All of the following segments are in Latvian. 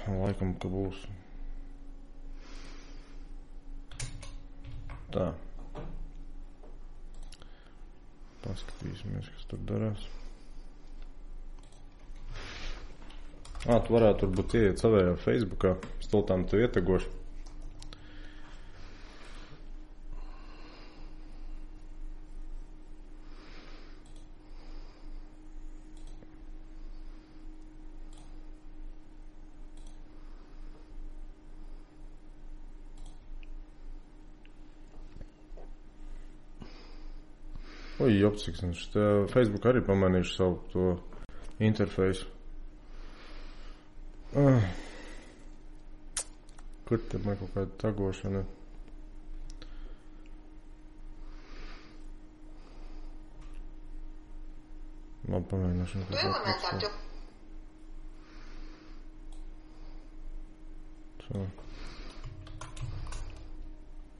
Laikam, ka būs. Tā. Paskatīsimies, kas tur darās. Tu varētu turbūt ieiet savējā Facebookā. Stultām tu ietegoši. Jopciks, Facebook arī pamanīšu savu to interfeisu. Kur te man kaut kāda tagošana? Labi, pamēģināšu.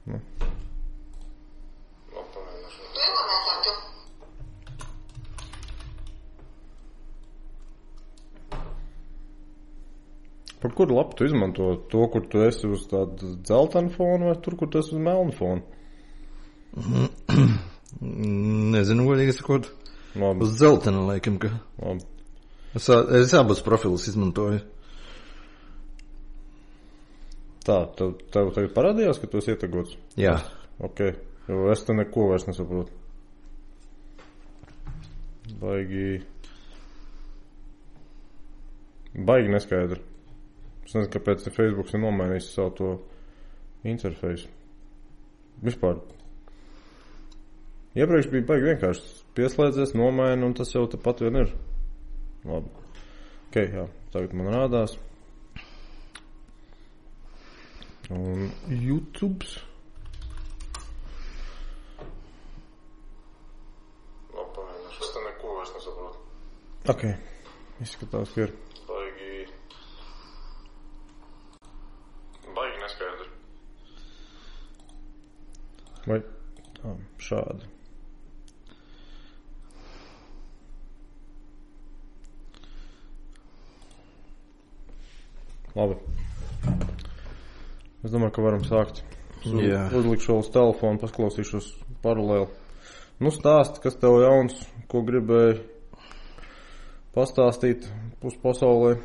Nu. Par kuru lapu tu izmanto? To, kur tu esi uz tādu dzeltenu fonu, vai tur, kur tu esi uz melnu fonu? Nezinu, godīgi sakot. Uz dzeltenu, laikam, ka. Labi. Es abus profilus izmantoju. Tā, tev tagad parādījās, ka tu esi ietegots? Jā. Ok, jo es te neko vairs nesaprotu. Baigi neskaidri. Es nezinu, kāpēc Facebooks ir nomainījis savu to interfeisu. Vispār. Iepriekš bija baigi vienkārši pieslēdzies, nomaina, un tas jau tepat vien ir. Labi. Ok, jā. Tagad man rādās. Un YouTubes. Labi, pamēģināšu. Es te neko vairs nesaprotu. Ok. Izskatās, ka ir. Baigi neskaidri. Vai šādi. Labi. Es domāju, ka varam sākt. Uzlikšu uz telefonu, pasklausīšos paralēli. Nu, stāsti, kas tev jauns, ko gribēji pastāstīt uz pasaulē.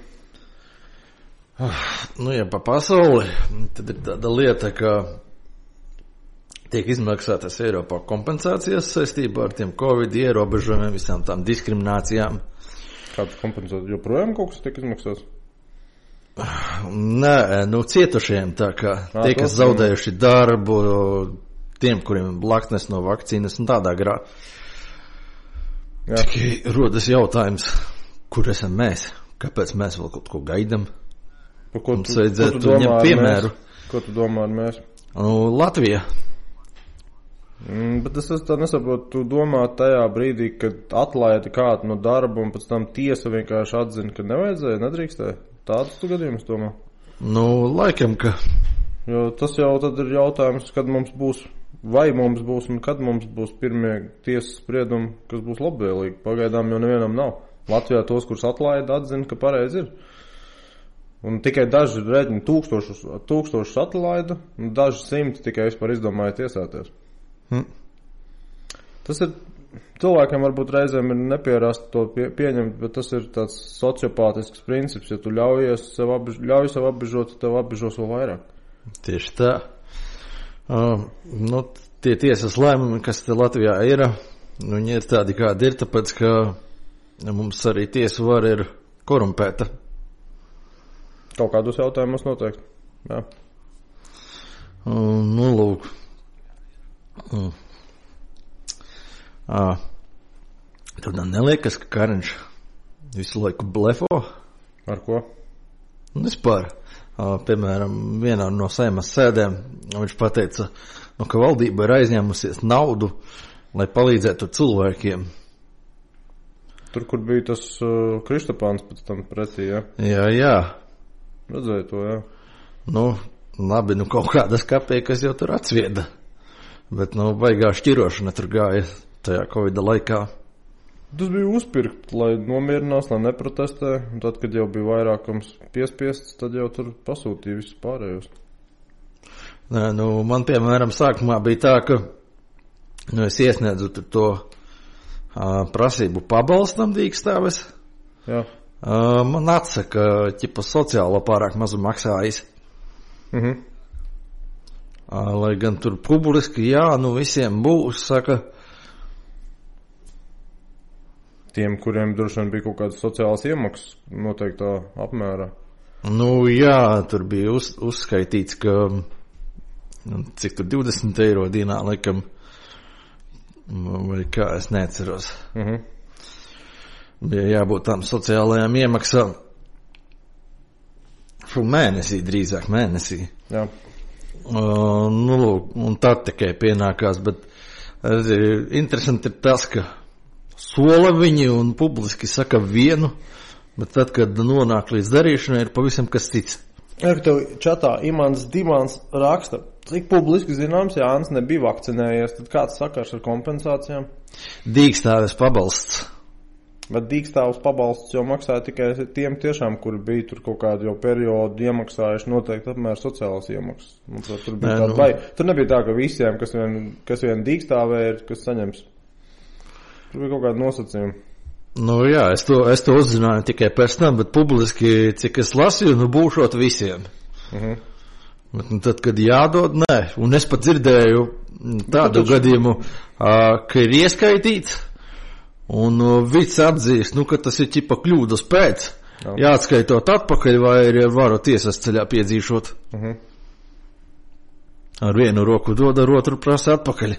Nu, ja pa pasauli, tad ir tāda lieta, ka tiek izmaksātas Eiropā kompensācijas saistībā ar tiem Covid ierobežojumiem, visām tām diskriminācijām. Kāds kompensācijas? Joprojām kaut kas tiek izmaksāts? Nē, nu cietušiem, tā kā tie, kas zaudējuši darbu, tiem, kuriem blaknes no vakcīnas un tādā grā. Tikai rodas jautājums, kur esam mēs? Kāpēc mēs vēl kaut ko gaidam? Mums vajadzētu ņemt piemēru. Ko tu domā ar mēs? Latvija. Bet es tā nesaprotu, tu domā tajā brīdī, kad atlaidi kādu no darba un pēc tam tiesa vienkārši atzina, ka nevajadzēja, nedrīkstēja. Tādus tu gadījumus domā? Nu, laikam, ka. Jo tas jau tad ir jautājums, kad mums būs, vai mums būs un kad mums būs pirmie tiesas spriedumi, kas būs labvēlīgi. Pagaidām jau nevienam nav. Latvijā tos, kurus atlaida, atzina, ka pareizi ir. Un tikai daži rēķini tūkstošus atlaida, un daži simti tikai vispār izdomāja tiesāties. Tas ir, cilvēkiem varbūt reizēm ir nepierast to pieņemt, bet tas ir tāds sociopātisks princips. Ja tu ļauj sev apbežot, tev apbežos vēl vairāk. Tieši tā. Nu, tie tiesas lēmumi, kas te Latvijā ir, viņi ir tādi, kādi ir, tāpēc, ka mums arī tiesu vara ir korumpēta. Kaut kādos jautājumos noteikti. Jā. Nu, lūk. Tev neliekas, ka Kariņš visu laiku blefo? Ar ko? Vispār. Piemēram, vienā no Seimas sēdēm viņš pateica, ka valdība ir aizņēmusies naudu, lai palīdzētu cilvēkiem. Tur, kur bija tas Kristapāns pēc tam pretī, ja? Jā. Redzēju to, jā. Nu, labi, kaut kādas kapeikas jau tur atsvieda. Bet, baigā šķirošana tur gāja tajā Covida laikā. Tas bija uzpirkt, lai nomierinās, lai neprotestē. Un tad, kad jau bija vairākums piespiests, tad jau tur pasūtīja visus pārējos. Nē, man, piemēram, sākumā bija tā, ka es iesniedzu to prasību pabalstam dīkstāves. Jā. Man atsaka, ķipa sociālo pārāk mazu maksājis. Lai gan tur publiski, jā, visiem būs, saka. Tiem, kuriem droši vien bija kaut kādas sociālas iemaksas noteiktā apmērā. Jā, tur bija uzskaitīts, ka cik tur 20 eiro dienā, laikam, vai kā, es neatceros. Bija jābūt tām sociālajām iemaksām. Mēnesī, drīzāk mēnesī. Jā. Un tad tikai pienākās, bet interesanti ir tas, ka sola viņi un publiski saka vienu, bet tad, kad nonāk līdz darīšanai, ir pavisam kas cits. Ja, ka tev čatā Imants Dimants raksta, cik publiski zināms, Jānis nebija vakcinējies, tad kāds sakars ar kompensācijām? Dīkstāves pabalsts. Bet dīkstāves pabalsts jau maksāja tikai tiem tiešām, kuri bija tur kaut kādu jau periodu iemaksājuši noteikti apmēr sociālas iemaksas. Tur bija tāda vai. Tur nebija tā, ka visiem, kas vien dīkstāvē ir, kas saņems. Tur bija kaut kāda nosacījuma. Jā, es to uzzināju tikai pēc tam, bet publiski, cik es lasīju, būšot visiem. Bet tad, kad jādod, nē. Un es pat dzirdēju tādu gadījumu, ka ir ieskaitīts, un vids atzīst, ka tas ir ķipa kļūdas pēc. Jāatskaitot atpakaļ, vai ir varu tiesas ceļā piedzīšot. Ar vienu roku dod, ar otru prasa atpakaļ.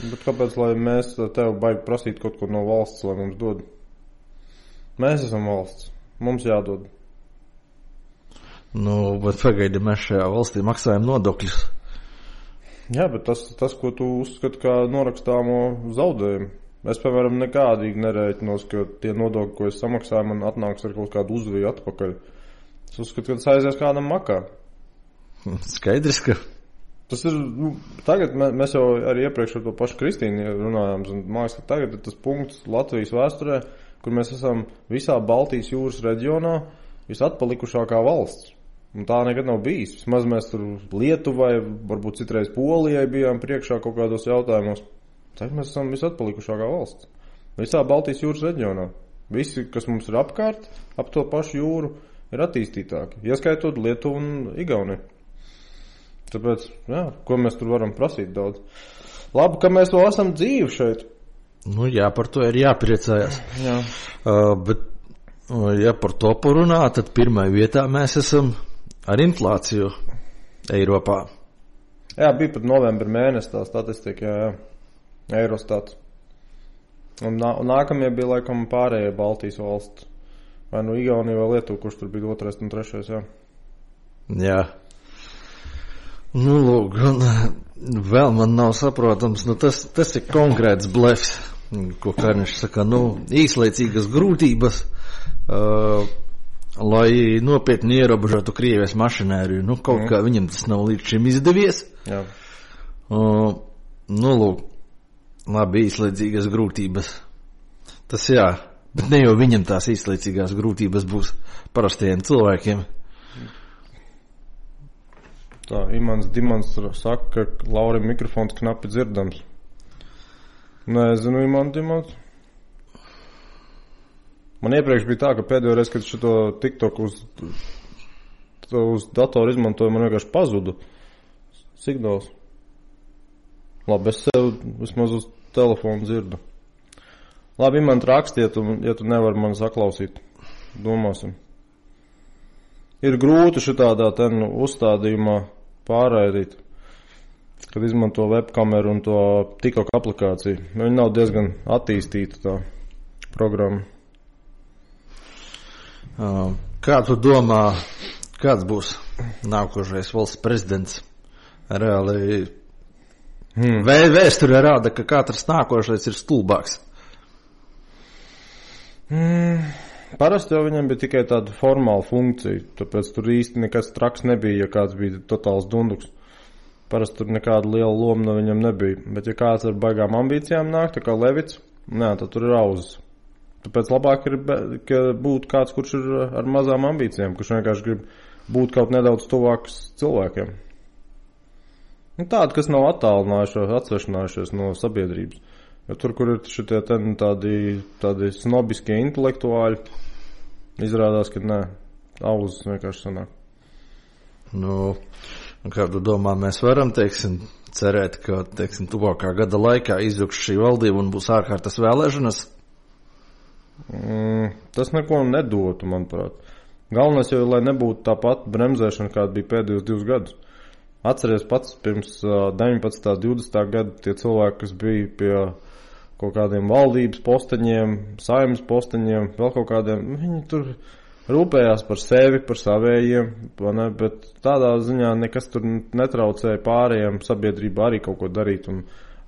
Bet kāpēc, lai mēs tev baigi prasīt kaut ko no valsts, lai mums dod? Mēs esam valsts. Mums jādod. Bet pagaidi, mēs šajā valstī maksājam nodokļus. Jā, bet tas ko tu uzskati kā norakstāmo zaudējumu. Es, piemēram, nekādīgi nerēķinos, ka tie nodokļi, ko es samaksāju, man atnāks ar kaut kādu uzviju atpakaļ. Es uzskatu, ka tas aizies kādam makā. Skaidrs, ka... Tas ir, tagad mēs jau arī iepriekš ar to pašu Kristīnu runājām, un mājas, ka tagad ir tas punkts Latvijas vēsturē, kur mēs esam visā Baltijas jūras reģionā visatpalikušākā valsts. Un tā nekad nav bijis. Vismaz mēs tur Lietuvai, varbūt citreiz Polijai bijām priekšā kaut kādos jautājumos. Tagad mēs esam visatpalikušākā valsts. Visā Baltijas jūras reģionā. Visi, kas mums ir apkārt, ap to pašu jūru, ir attīstītāki. Ieskaitot Lietuvu un Igauniju. Tāpēc, jā, ko mēs tur varam prasīt daudz. Labi, ka mēs vēl esam dzīvi šeit. Jā, par to ir jāpriecājas. Jā. Bet, ja par to parunā, tad pirmajā vietā mēs esam ar inflāciju Eiropā. Jā, bija pat novembra mēnesis tā statistika, jā. Eurostats. Un nākamie bija laikam pārējie Baltijas valsts. Vai Igaunija vai Lietuva, kurš tur bija 2. un 3. jā. Jā. Lūk, vēl man nav saprotams, tas ir konkrēts blefs, ko Karniņš saka, īslaicīgas grūtības, lai nopietni ierobežotu Krievijas mašinēriju. Kaut kā viņam tas nav līdz šim izdevies. Jā. Lūk, labi, īslaicīgas grūtības. Tas jā, bet ne jau viņam tās īslaicīgās grūtības būs parastajiem cilvēkiem. Tā, Imants Dimants saka, ka Laurim mikrofons knapi dzirdams. Nezinu, Imants Dimants. Man iepriekš bija tā, ka pēdējo reizi, kad šito TikTok uz datoru izmantoju, man vienkārši pazuda signāls. Labi, es sev vismaz uz telefonu dzirdu. Labi, Imants, rakstiet, ja tu nevari man saklausīt. Domāsim. Ir grūti šitādā uzstādījumā pārraidīt, kad izmanto webkameru un to TikTok aplikāciju. Viņa nav diezgan attīstīta tā programma. Kā tu domā, kāds būs nākošais valsts prezidents? Reāli vēsture rāda, ka katrs nākošais ir stulbāks. Parasti jau viņam bija tikai tāda formāla funkcija, tāpēc tur īsti nekas traks nebija, ja kāds bija totāls dunduks. Parasti tur nekāda liela loma no viņam nebija. Bet ja kāds ar baigām ambīcijām nāk, tā kā Levits, tad tur ir auzas. Tāpēc labāk ir, ka būtu kāds, kurš ir ar mazām ambīcijām, kurš vienkārši grib būt kaut nedaudz tuvāks cilvēkiem. Tādi, kas nav atsvešinājušies no sabiedrības. Jo tur, kur ir šitie tādi snobiskie intelektuāļi, izrādās, ka nē, auzas vienkārši sanāk. Nu, kā tu domā, mēs varam, cerēt, ka, tuvākā gada laikā izjukš šī valdība un būs ārkārtas vēlēšanas? Tas neko nedotu, manuprāt. Galvenais jau, lai nebūtu tā pati bremzēšana, kāda bija pēdējos 2 gadus. Atceries pats pirms 19. 20. gada tie cilvēki, kas bija pie kaut kādiem valdības posteņiem, saimnes posteņiem, vēl kaut kādiem, viņi tur rūpējās par sevi, par savējiem, bet tādā ziņā nekas tur netraucēja pārējiem sabiedrībā arī kaut ko darīt un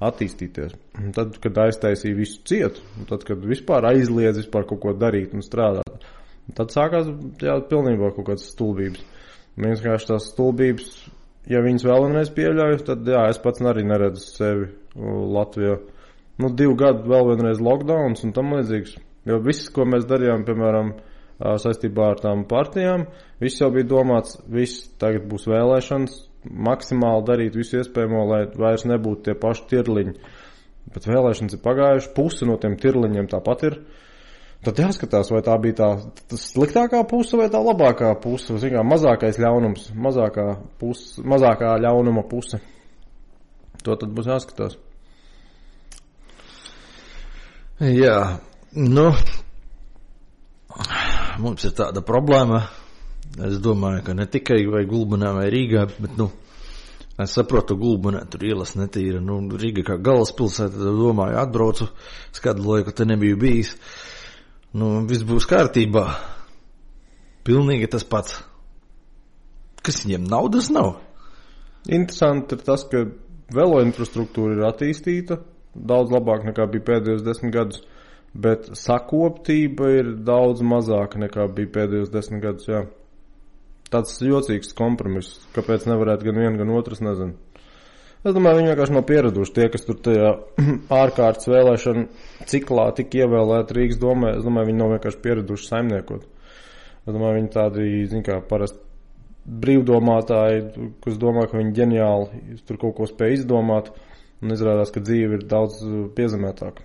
attīstīties. Un tad, kad aiztaisīja visu cietu, un tad, kad vispār aizliedz vispār kaut ko darīt un strādāt, tad sākās pilnībā kaut kādas stulbības. Vienkārši tās stulbības, ja viņas vēl vienreiz pieļauj, tad es pats arī neredzu sevi Latvijā. 2 gadu vēl vienreiz lockdowns un tam līdzīgs. Jo viss, ko mēs darījām, piemēram, saistībā ar tām partijām, viss jau bija domāts, viss tagad būs vēlēšanas, maksimāli darīt visu iespējamo, lai vairs nebūtu tie paši tirliņi. Bet vēlēšanas ir pagājuši, puse no tiem tirliņiem tāpat ir. Tad jāskatās, vai tā bija tā sliktākā puse vai tā labākā puse. Zinām, mazākais ļaunums, mazākā ļaunuma puse. To tad būs jāskatās. Jā, mums ir tāda problēma. Es domāju, ka ne tikai vai Gulbenā vai Rīgā, bet, es saprotu, Gulbenā tur ielas netīra. Rīga kā galvaspilsēta, domāju, atbraucu, skadu laiku te nebiju bijis. Viss būs kārtībā. Pilnīgi tas pats. Kas viņiem naudas nav? Interesanti ir tas, ka velo infrastruktūra ir attīstīta daudz labāk nekā bija pēdējos 10 gadus, bet sakoptība ir daudz mazāka nekā bija pēdējos 10 gadus, jā. Tāds jocīgs kompromiss, kāpēc nevarētu gan viena, gan otras, nezinu. Es domāju, viņi vienkārši nav pieraduši tie, kas tur tajā ārkārtas vēlēšana ciklā tik ievēlēti Rīgas domē. Es domāju, viņi nav vienkārši pieraduši saimniekot. Es domāju, viņi tādi, parasti brīvdomātāji, kas domā, ka viņi ģeniāli tur kaut ko spēj izdomāt, un izrādās, ka dzīve ir daudz piezemētāka.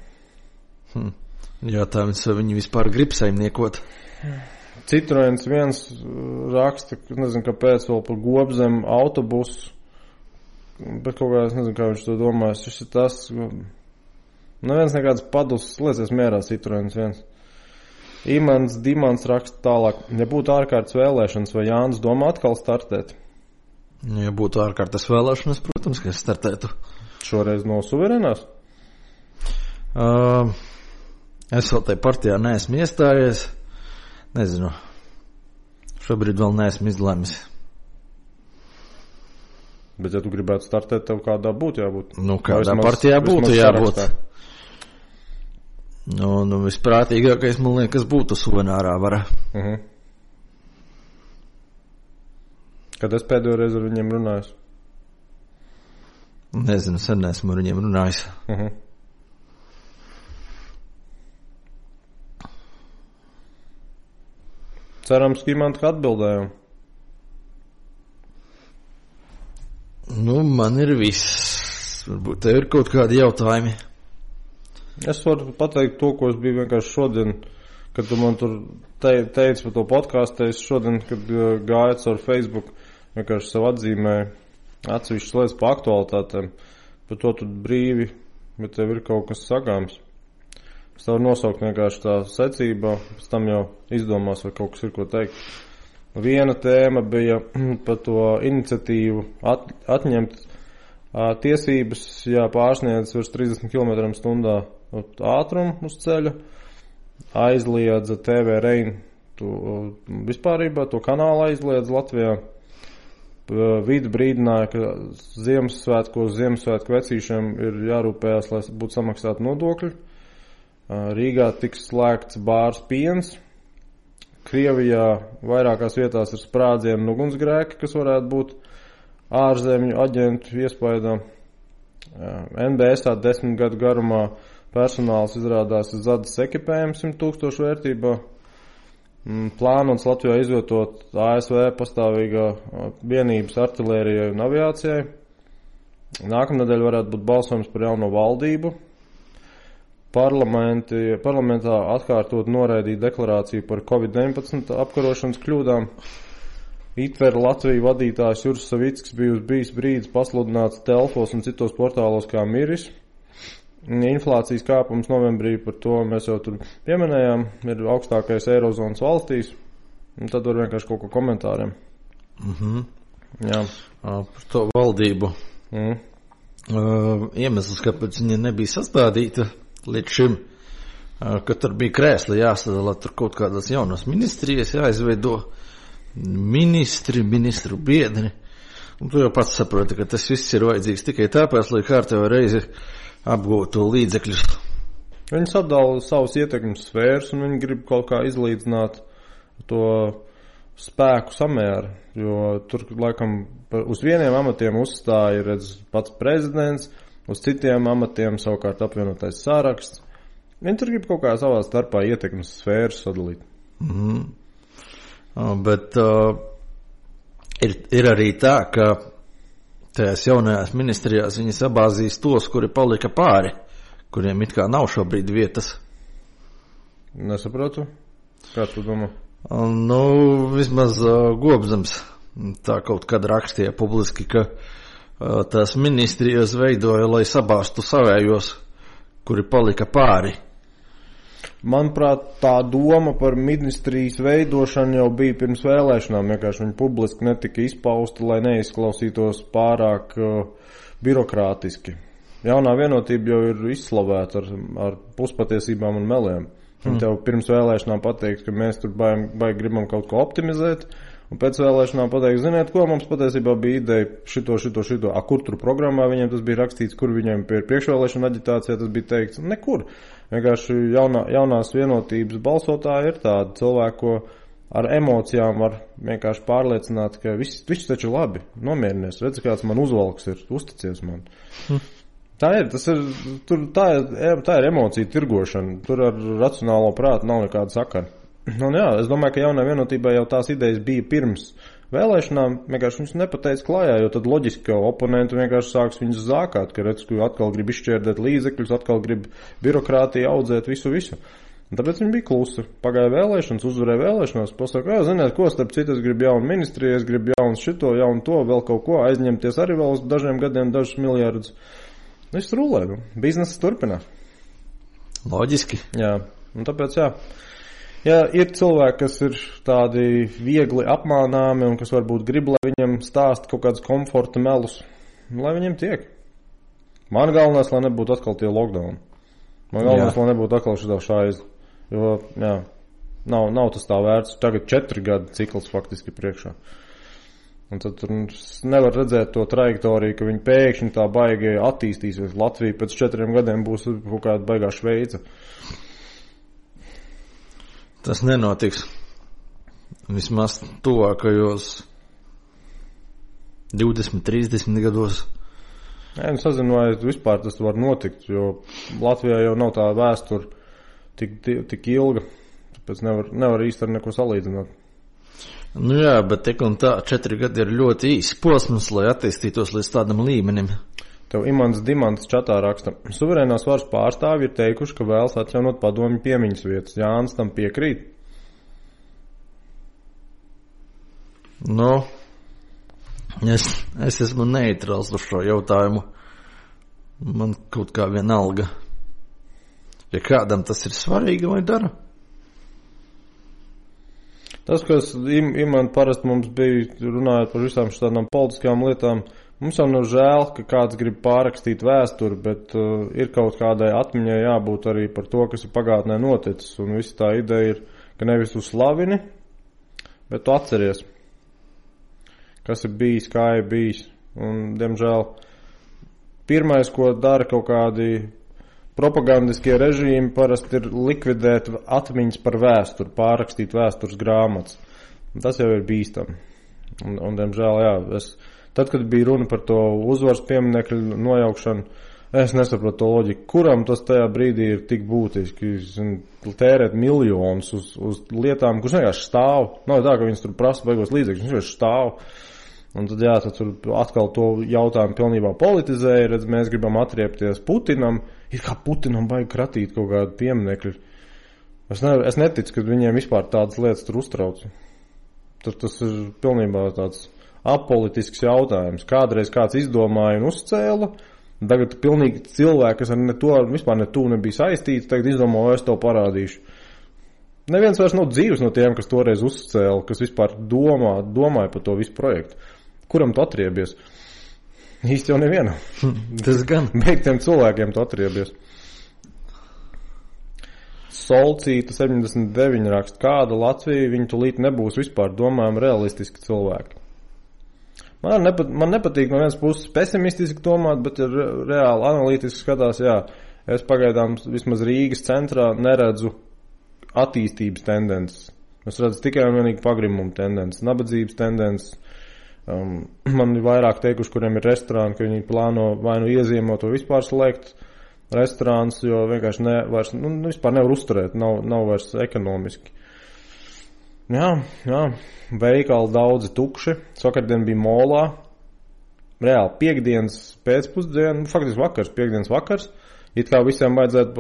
Jātājums, vai viņi vispār grib saimniekot? Citroens viens raksta, nezinu, kāpēc vēl par Gobzem autobusu, bet kaut kā es nezinu, kā viņš to domājas. Šis ir tas, neviens nekāds padus, liecies mierā Citroens viens. Dimants raksta tālāk, ja būtu ārkārtas vēlēšanas, vai Jānis domā atkal startēt? Ja būtu ārkārtas vēlēšanas, protams, ka es startētu. Šoreiz no suverenās? Es vēl tai partijā neesmu iestājies. Nezinu. Šobrīd vēl neesmu izlēmis. Bet, ja tu gribētu startēt, tev kādā būtu jābūt? Kādā partijā būtu jābūt. Visprātīgākais, man liekas, būtu suvenārā vara. Kad es pēdējo reizi ar viņiem runāju? Nezinu, sen esmu ar viņiem runājis. Cerams, ka man tā atbildējām. Man ir viss. Varbūt tev ir kaut kādi jautājumi. Es varu pateikt to, ko es biju vienkārši šodien, kad tu man tur teici par to podcastu. Es šodien, kad gāju caur Facebook, vienkārši sev atzīmēju atsevišķas lietas par aktualitātēm. Par to tu brīvi, bet tev ir kaut kas sagāms. Es tev nosaukt vienkārši tā secībā, pēc tam jau izdomās, vai kaut kas ir ko teikt. Viena tēma bija par to iniciatīvu atņemt tiesības, ja pārsniedz virs 30 km/h ātrumu uz ceļa, aizliedza TV Rein, vispārībā to kanālu aizliedza Latvijā. Vidi brīdināja, ka Ziemassvētku vecīšiem ir jārūpējās, lai būtu samaksāti nodokļi. Rīgā tiks slēgts bārs Piens. Krievijā vairākās vietās ir sprādzieni un ugunsgrēki, kas varētu būt ārzemju aģentu iespaidā. NBS 10 gadu garumā personāls izrādās zadas ekipējums 100,000 vērtībā. Plānots Latvijā izvietot ASV pastāvīgā vienības artilērijai un aviācijai. Nākamnedēļ varētu būt balsojums par jauno valdību. Parlamentā atkārtot noraidīt deklarāciju par Covid-19 apkarošanas kļūdām. ITVER Latviju vadītājs Juris Savickis bijis brīdis pasludināts telfos un citos portālos kā miris. Inflācijas kāpums novembrī, par to mēs jau tur pieminējām, ir augstākais Eirozonas valstīs. Un tad var vienkārši kaut ko komentāriem. Jā. Par to valdību. Iemesls, kāpēc viņa nebija sastādīta līdz šim, ka tur bija krēsli jāsadala, tur kaut kādas jaunas ministrijas jāizveido, ministru biedri. Un tu jau pats saproti, ka tas viss ir vajadzīgs tikai tāpēc, lai kārtējo reizi apgūtu līdzekļus. Viņi sadala savus ietekmes sfēras un viņi grib kaut kā izlīdzināt to spēku samēru, jo tur laikam uz vieniem amatiem uzstāja redz pats prezidents, uz citiem amatiem savukārt apvienotais saraksts. Viņi tur grib kaut kā savā starpā ietekmes sfēras sadalīt. Bet ir arī tā, ka tajās jaunajās ministrijās viņi sabāzīs tos, kuri palika pāri, kuriem it kā nav šobrīd vietas. Nesaprotu. Kā tu domā? Vismaz Gobzems tā kaut kad rakstīja publiski, ka tās ministrijas veidoja, lai sabāstu savējos, kuri palika pāri. Manuprāt, tā doma par ministrijas veidošanu jau bija pirms vēlēšanām, vienkārši viņi publiski netika izpausta, lai neizklausītos pārāk birokrātiski. Jaunā vienotība jau ir izslavēta ar puspatiesībām un meliem. Viņi tev pirms vēlēšanām pateiks, ka mēs tur baigi gribam kaut ko optimizēt, un pēc vēlēšanām pateiks, ziniet ko, mums patiesībā bija ideja šito. Kur tur programmā viņiem tas bija rakstīts, kur viņiem priekšvēlēšana aģitācijā tas bija teikts? Nekur. Vienkārši jaunās vienotības balsotāji ir tādi cilvēki, ko ar emocijām var vienkārši pārliecināt, ka viss taču labi, nomierinies, redz, kāds man uzvalks ir, uzticies man. Tā ir emocija tirgošana, tur ar racionālo prātu nav nekāda sakara. Un jā, es domāju, ka jaunā vienotībā jau tās idejas bija pirms vēlēšanām, vienkārši viņus nepateica klājā, jo tad loģiski, ka oponenti vienkārši sāks viņus zākāt, ka redz, ka atkal grib izšķērdēt līdzekļus, atkal grib birokrātiju audzēt visu. Un tāpēc viņi bija klusi. Pagāja vēlēšanas, uzvarēja vēlēšanās, pasaka, ziniet, ko starp citu, es gribu jaunu ministriju, es gribu jaunu šito, jaunu to, vēl kaut ko, aizņemties arī vēl uz dažiem gadiem, dažus miljardus. Viss rulē, biznesis turpinās. Loģiski. Jā, un tāpēc jā. Ja ir cilvēki, kas ir tādi viegli apmānāmi un kas varbūt grib, lai viņam stāst kaut kādas komforta melus, lai viņiem tiek. Man galvenais, lai nebūtu atkal tie lockdown. Man galvenais, lai nebūtu atkal šitā šaiz. Jo, jā, nav tas tā vērts. Tagad 4 gadu cikls faktiski priekšā. Un tad tur nevar redzēt to trajektoriju, ka viņi pēkšņi tā baigi attīstīsies. Latvija pēc 4 gadiem būs kaut kāda baigā Šveica. Tas nenotiks. Vismaz tuvākajos 20-30 gados. Jā, es nezinu, vai vispār tas var notikt, jo Latvijā jau nav tā vēsture tik ilga, tāpēc nevar īsti ar neko salīdzināt. Nu jā, bet tik un tā 4 gadi ir ļoti īsi posms, lai attīstītos līdz tādam līmenim. Tev Imants Dimants čatā raksta, suverēnās varas pārstāvji ir teikuši, ka vēlas atjaunot padomju piemiņas vietas. Jānis tam piekrīt? Es esmu neitrāls uz šo jautājumu. Man kaut kā vienalga. Ja kādam tas ir svarīgi, vai dara? Tas, kas Imants parasti mums bija runājot par visām šādām politiskām lietām, mums jau nav žēl, ka kāds grib pārrakstīt vēsturi, bet ir kaut kādai atmiņai jābūt arī par to, kas ir pagātnē noticis. Un visa tā ideja ir, ka nevis tu slavini, bet tu atceries, kas ir bijis, kā ir bijis. Un, diemžēl, pirmais, ko dara kaut kādi propagandiskie režīmi, parasti ir likvidēt atmiņas par vēsturi, pārrakstīt vēstures grāmatas. Un tas jau ir bīstami. Un diemžēl, jā, tad, kad bija runa par to uzvaras pieminekļu nojaukšanu, Es nesaprotu to loģiku. Kuram tas tajā brīdī ir tik būtiski tērēt miljonus uz lietām, kurš vienkārši stāv. Nav tā, ka viņas tur prasa beigos līdzekļus, viņš vienkārši stāv. Un tad, tad tur atkal to jautājumu pilnībā politizēja, redz, mēs gribam atriepties Putinam. Ir kā Putinam vajag kratīt kaut kādu pieminekļu. Es neticu, ka viņiem vispār tādas lietas tur uztrauc. Tas ir pilnībā tāds apolitisks jautājums. Kādreiz kāds izdomāja un uzcēla. Tagad pilnīgi cilvēki, kas ar to vispār nebija saistīti, tagad izdomā, es tev parādīšu. Neviens vairs nav dzīves no tiem, kas toreiz uzcēla, kas vispār domāja par to visu projektu. Kuram tu atriebies? Īsti jau nevienam. Tas gan. Beigtiem cilvēkiem tu atriebies. Solcīta 79 raksta, kāda Latvija, viņi tulīt nebūs vispār domājam realistiski cilvēki. Man nepatīk no vienas puses pesimistiski domāt, bet ir reāli analītiski skatās, es pagaidām vismaz Rīgas centrā neredzu attīstības tendences. Es redzu tikai un vienīgi pagrimumu tendences, nabadzības tendences. Man ir vairāk teikuši, kuriem ir restorāni, ka viņi plāno vai nu iezīmot vai vispār slēgt restorāns, jo vienkārši vispār nevar uzturēt, nav vairs ekonomiski. Jā, veikali daudzi tukši. Vakardien bija molā. Reāli piekdienas pēcpusdiena, faktiski vakars, piekdienas vakars. It kā visiem vajadzētu,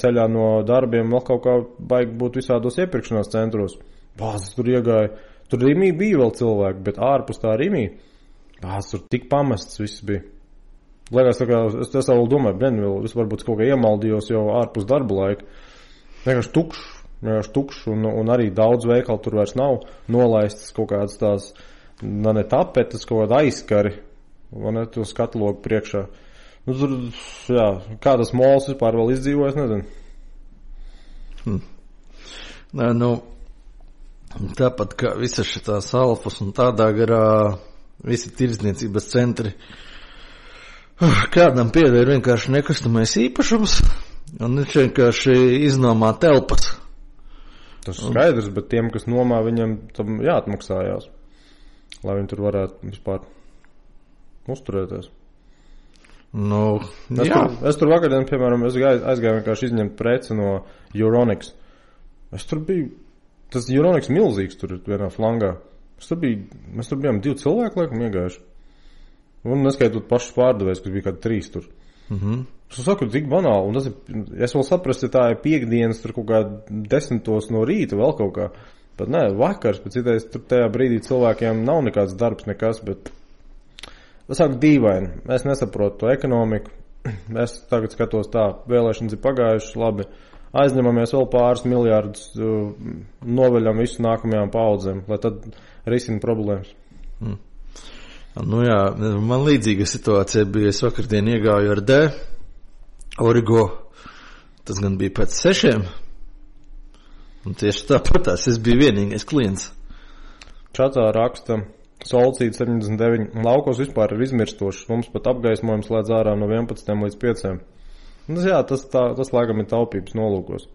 ceļā no darbiem vēl kaut kā baigi būt visādos iepirkšanās centros. Bāzes tur iegāja. Tur Rimī bija vēl cilvēki, bet ārpus tā Rimī. Bāzes tur tik pamests viss bija. Liekas, tā kā, es vēl domāju, es varbūt kaut kā iemaldījos jau ārpus darba laika. Vienkārši tukšs un arī daudz veikalu tur vairs nav nolaistas kaut kādas tās, ne tapetes, kaut kāda aizskari, vai ne, to skatlogu priekšā. Tur, kā tas mols vispār vēl izdzīvojas, nezinu. Nē, tāpat kā visas šitās alfas un tādā garā visi tirdzniecības centri, kādam pieder vienkārši nekustamais īpašums, un viņš vienkārši iznomā telpas. Tas ir skaidrs, bet tiem, kas nomā, viņam tam jāatmaksājās, lai viņi tur varētu vispār uzturēties. Es tur vakardien, piemēram, aizgāju vienkārši izņemt preci no Euronics. Es tur biju, tas Euronics milzīgs tur vienā flangā. Mēs tur bijām 2 cilvēki, laikam, iegājuši. Un neskaitot pašus pārdevējus, kas bija kādi 3 tur. Es saku, tik banāli, un es vēl saprastu, ja tā ir piekdienas, tur kaut kā 10 no rīta vēl kaut kā, bet nē, vakars, bet citais tur tajā brīdī cilvēkiem nav nekāds darbs, nekas, bet es saku dīvaini, es nesaprotu to ekonomiku, es tagad skatos tā, vēlēšanas ir pagājušas, labi, aizņemamies vēl pāris miljārdus, noveļam visu nākamajām paudzēm, lai tad risina problēmas. Man līdzīga situācija bija, es vakardien iegāju ar D, Origo, tas gan bija pēc 6, un tieši tāpatās es biju vienīgais klients. Čatā raksta Solcīta 79, laukos vispār ir izmirstošs, mums pat apgaismojums slēdz ārā no 11 līdz 5. Tas laikam ir taupības nolūkos.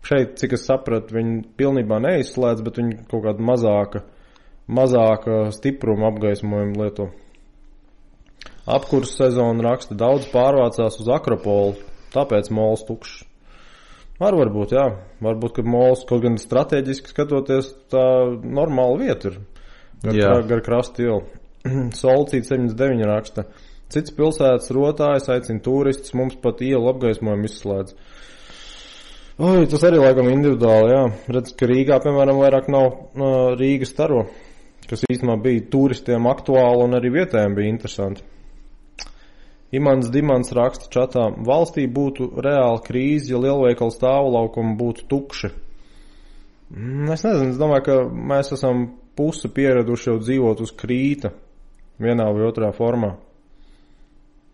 Šeit, cik es sapratu, viņi pilnībā neizslēdz, bet viņi kaut kādu mazāka stipruma apgaismojumu lieto. Apkurs sezonu raksta, daudz pārvācās uz Akropolu, tāpēc mols tukšs. Varbūt, varbūt, ka mols kaut gan strateģiski skatoties, tā normāla vieta ir. Gar krastu ielu. Solcīta 79 raksta, cits pilsētas rotājas, aicina turistus, mums pat ielu apgaismojumu izslēdz. Tas arī laikam individuāli, Redz, ka Rīgā, piemēram, vairāk nav Rīgas staro, kas īstenībā bija turistiem aktuāli un arī vietējiem bija interesanti. Imants Dimants raksta čatā, valstī būtu reāla krīze, ja lielveikalu stāvlaukumi būtu tukši. Es nezinu, es domāju, ka mēs esam pusi pieraduši jau dzīvot uz krīta vienā vai otrā formā.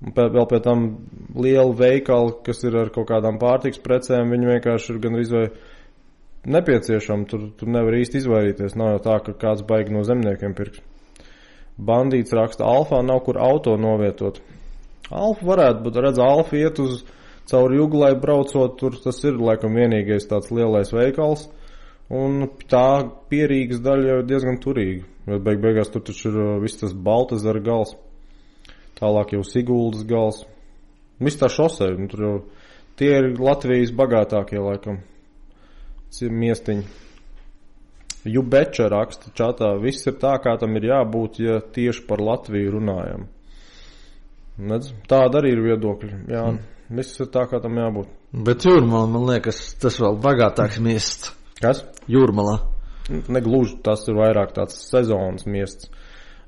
Vēl pie tam liela veikali, kas ir ar kaut kādām pārtiks precēm, viņi vienkārši ir gan vai nepieciešami, tur nevar īsti izvairīties, nav jau tā, ka kāds baigi no zemniekiem pirks. Bandīts raksta, Alfā nav kur auto novietot. Alfa varētu, bet redz, Alfa iet uz cauri Juglai braucot, tur tas ir laikam vienīgais tāds lielais veikals, un tā Pierīgas daļa jau diezgan turīga, jo beigās tur taču ir viss tas Baltazara gals, tālāk jau Siguldas gals, Viss tā šosei, tur jau tie ir Latvijas bagātākie, laikam, miestiņi. Jubeča raksta čatā, viss ir tā, kā tam ir jābūt, ja tieši par Latviju runājam. Nedz? Tāda arī ir viedokļi, jā, viss ir tā, kā tam jābūt. Bet Jūrmala, man liekas, tas vēl bagātāks miests. Kas? Jūrmala. Negluži, tas ir vairāk tāds sezonas miests.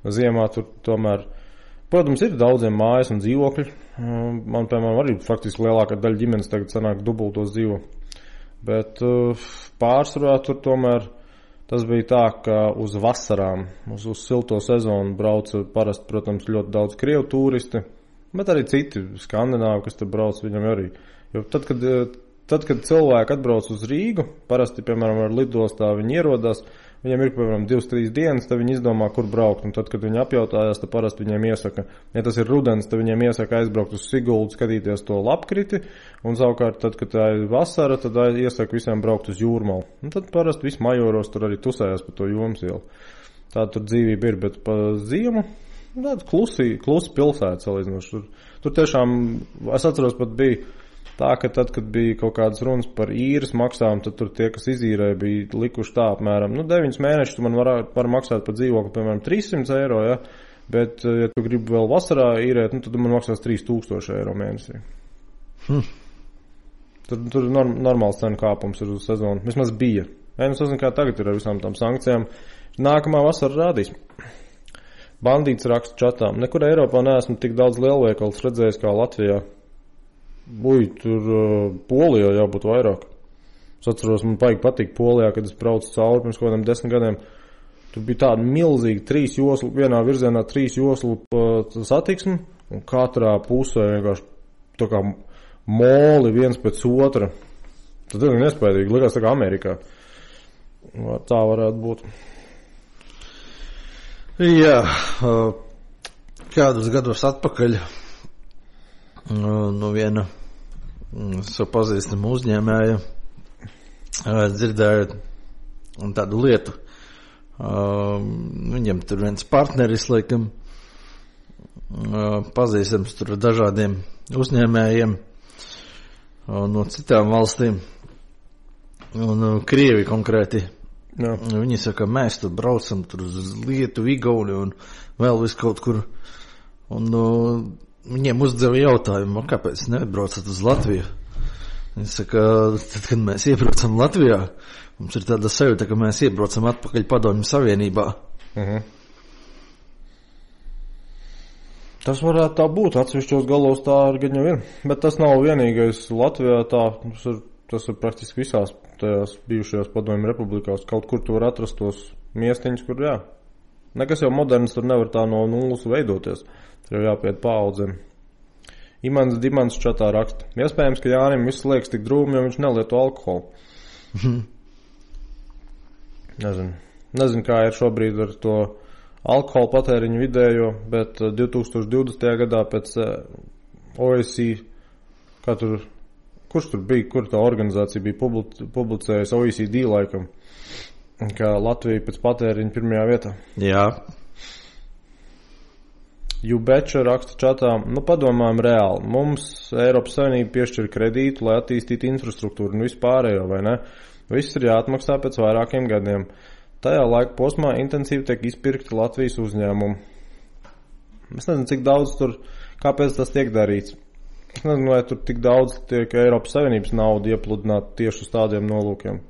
Ziemā tur tomēr, protams, ir daudziem mājas un dzīvokļi. Man, piemēram, arī faktiski lielākā daļa ģimenes tagad sanāk dubultos dzīvo. Bet pārsvarā tur tomēr tas bija tā, ka uz vasarām, uz silto sezonu brauca parasti, protams, ļoti daudz krievu turisti, bet arī citi skandināvi, kas tur brauc, viņam arī. Jo tad, kad cilvēki atbrauc uz Rīgu, parasti, piemēram, ar lidostā viņi ierodās, viņiem ir, piemēram, 2-3 dienas, tad viņi izdomā, kur braukt, un tad, kad viņi apjautājās, tad parasti viņiem iesaka, ja tas ir rudens, tad viņiem iesaka aizbraukt uz Siguldu, skatīties to lapkriti, un savukārt, tad, kad tā ir vasara, tad iesaka visiem braukt uz Jūrmalu. Un tad parasti visi majoros tur arī tusējās pa to Jomas ielu. Tā tur dzīvība ir, bet pa ziemu, tāda klusi pilsēta salīdzinoši. Tur tiešām, es atceros, pat bija tā, ka tad, kad bija kaut kādas runas par īres maksām, tad tur tie, kas izīrēja, bija likuši tā apmēram, 9 mēnešus tu man var maksāt par dzīvokli, piemēram, 300 eiro, ja? Bet, ja tu gribi vēl vasarā īrēt, tad man maksās 3000 eiro mēnesī. Tur normāls cenu kāpums ir uz sezonu. Vismaz bija. Es nezinu, kā tagad ir ar visām tām sankcijām. Nākamā vasara rādīs. Bandīts raksta čatām. Nekur Eiropā neesmu tik daudz lielveikals redzējis kā Latvijā. Tur Polijā jābūt vairāk. Es atceros, man patīk Polijā, kad es braucu cauri pirms kaut kādiem 10 gadiem. Tur bija tāda milzīga 3 joslu, vienā virzienā 3 joslu satiksme, un katrā pusē vienkārši tā kā moli viens pēc otra. Tas ir nespējīgi, likās tā kā Amerikā. Tā varētu būt. Jā, kādus gadus atpakaļ no viena savu pazīstamu uzņēmēju dzirdēju tādu lietu. Viņam tur viens partneris, laikam, pazīstams tur dažādiem uzņēmējiem no citām valstīm un Krievi konkrēti. Jā. Viņi saka, mēs tur braucam tur uz Lietuvu, Igauni un vēl vis kaut kur. Un viņiem uzdeva jautājumu, kāpēc nebraucat uz Latviju? Viņi saka, tad, kad mēs iebraucam Latvijā, mums ir tāda sajūta, ka mēs iebraucam atpakaļ Padomju Savienībā. Tas varētu tā būt, atsevišķos galos tā arī gan jau ir. Bet tas nav vienīgais Latvijā tā, tas ir praktiski visās tajās bijušajās Padomju republikās. Kaut kur tu var atrast tos miestiņus, kur jā. Nekas jau moderns tur nevar tā no nulles veidoties. Tur jau jāpiet paaudzēm. Imants Dimants čatā raksta. Iespējams, ka Jānim viss liekas tik drūmi, jo viņš nelieto alkoholu. Nezinu, kā ir šobrīd ar to alkohola patēriņu vidējo, bet 2020. gadā pēc OECD, kurš tur bija, kur tā organizācija bija publicējusi OECD laikam, ka Latvija pēc patēriņa pirmajā vietā. Jā. Jubeča raksta čatā, padomājam reāli, mums Eiropas Savienība piešķir kredītu, lai attīstītu infrastruktūru un vispārējo, vai ne? Viss ir jāatmaksā pēc vairākiem gadiem. Tajā laika posmā intensīvi tiek izpirkti Latvijas uzņēmumi. Es nezinu, cik daudz tur, kāpēc tas tiek darīts. Es nezinu, vai tur tik daudz tiek Eiropas Savienības nauda iepludināta tieši uz tādiem nolūkiem.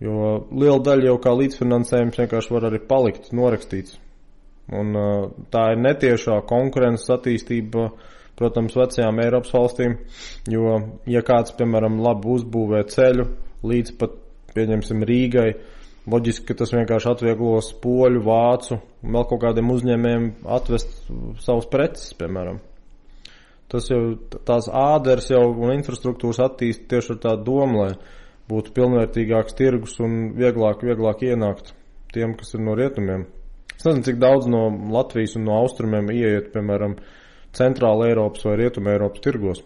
Jo liela daļa jau kā līdzfinansējums vienkārši var arī palikt norakstīts. Un tā ir netiešā konkurences attīstība, protams, vecajām Eiropas valstīm, jo, ja kāds, piemēram, labi uzbūvē ceļu līdz pat, pieņemsim, Rīgai, loģiski, ka tas vienkārši atvieglos poļu, vācu un vēl kaut kādiem uzņēmējiem atvest savus preces, piemēram. Tas jau, tās āders jau un infrastruktūras attīst tieši ar tādu domu, lai būtu pilnvērtīgāks tirgus un vieglāk ienākt tiem, kas ir no rietumiem. Es nezinu, cik daudz no Latvijas un no austrumiem ieiet, piemēram, centrāla Eiropas vai rietuma Eiropas tirgos.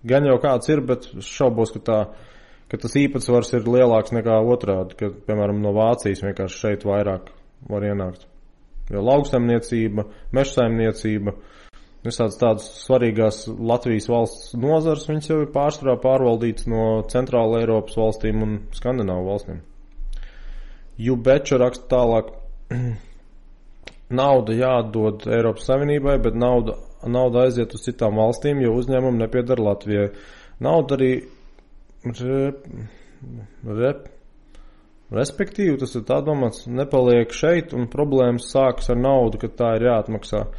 Gan jau kāds ir, bet šaubos, ka tas īpatsvars ir lielāks nekā otrādi, ka, piemēram, no Vācijas vienkārši šeit vairāk var ienākt. Jo lauksaimniecība, mežsaimniecība, Visāds tādas svarīgās Latvijas valsts nozars, viņas jau ir pārsvarā pārvaldīts no Centrāla Eiropas valstīm un Skandināvu valstīm. Jubeča raksta tālāk, nauda jāatdod Eiropas Savienībai, bet nauda aiziet uz citām valstīm, jo uzņēmumi nepiedara Latvijai. Nauda arī respektīvi, tas ir tā domāts, nepaliek šeit un problēmas sākas ar naudu, kad tā ir jāatmaksā.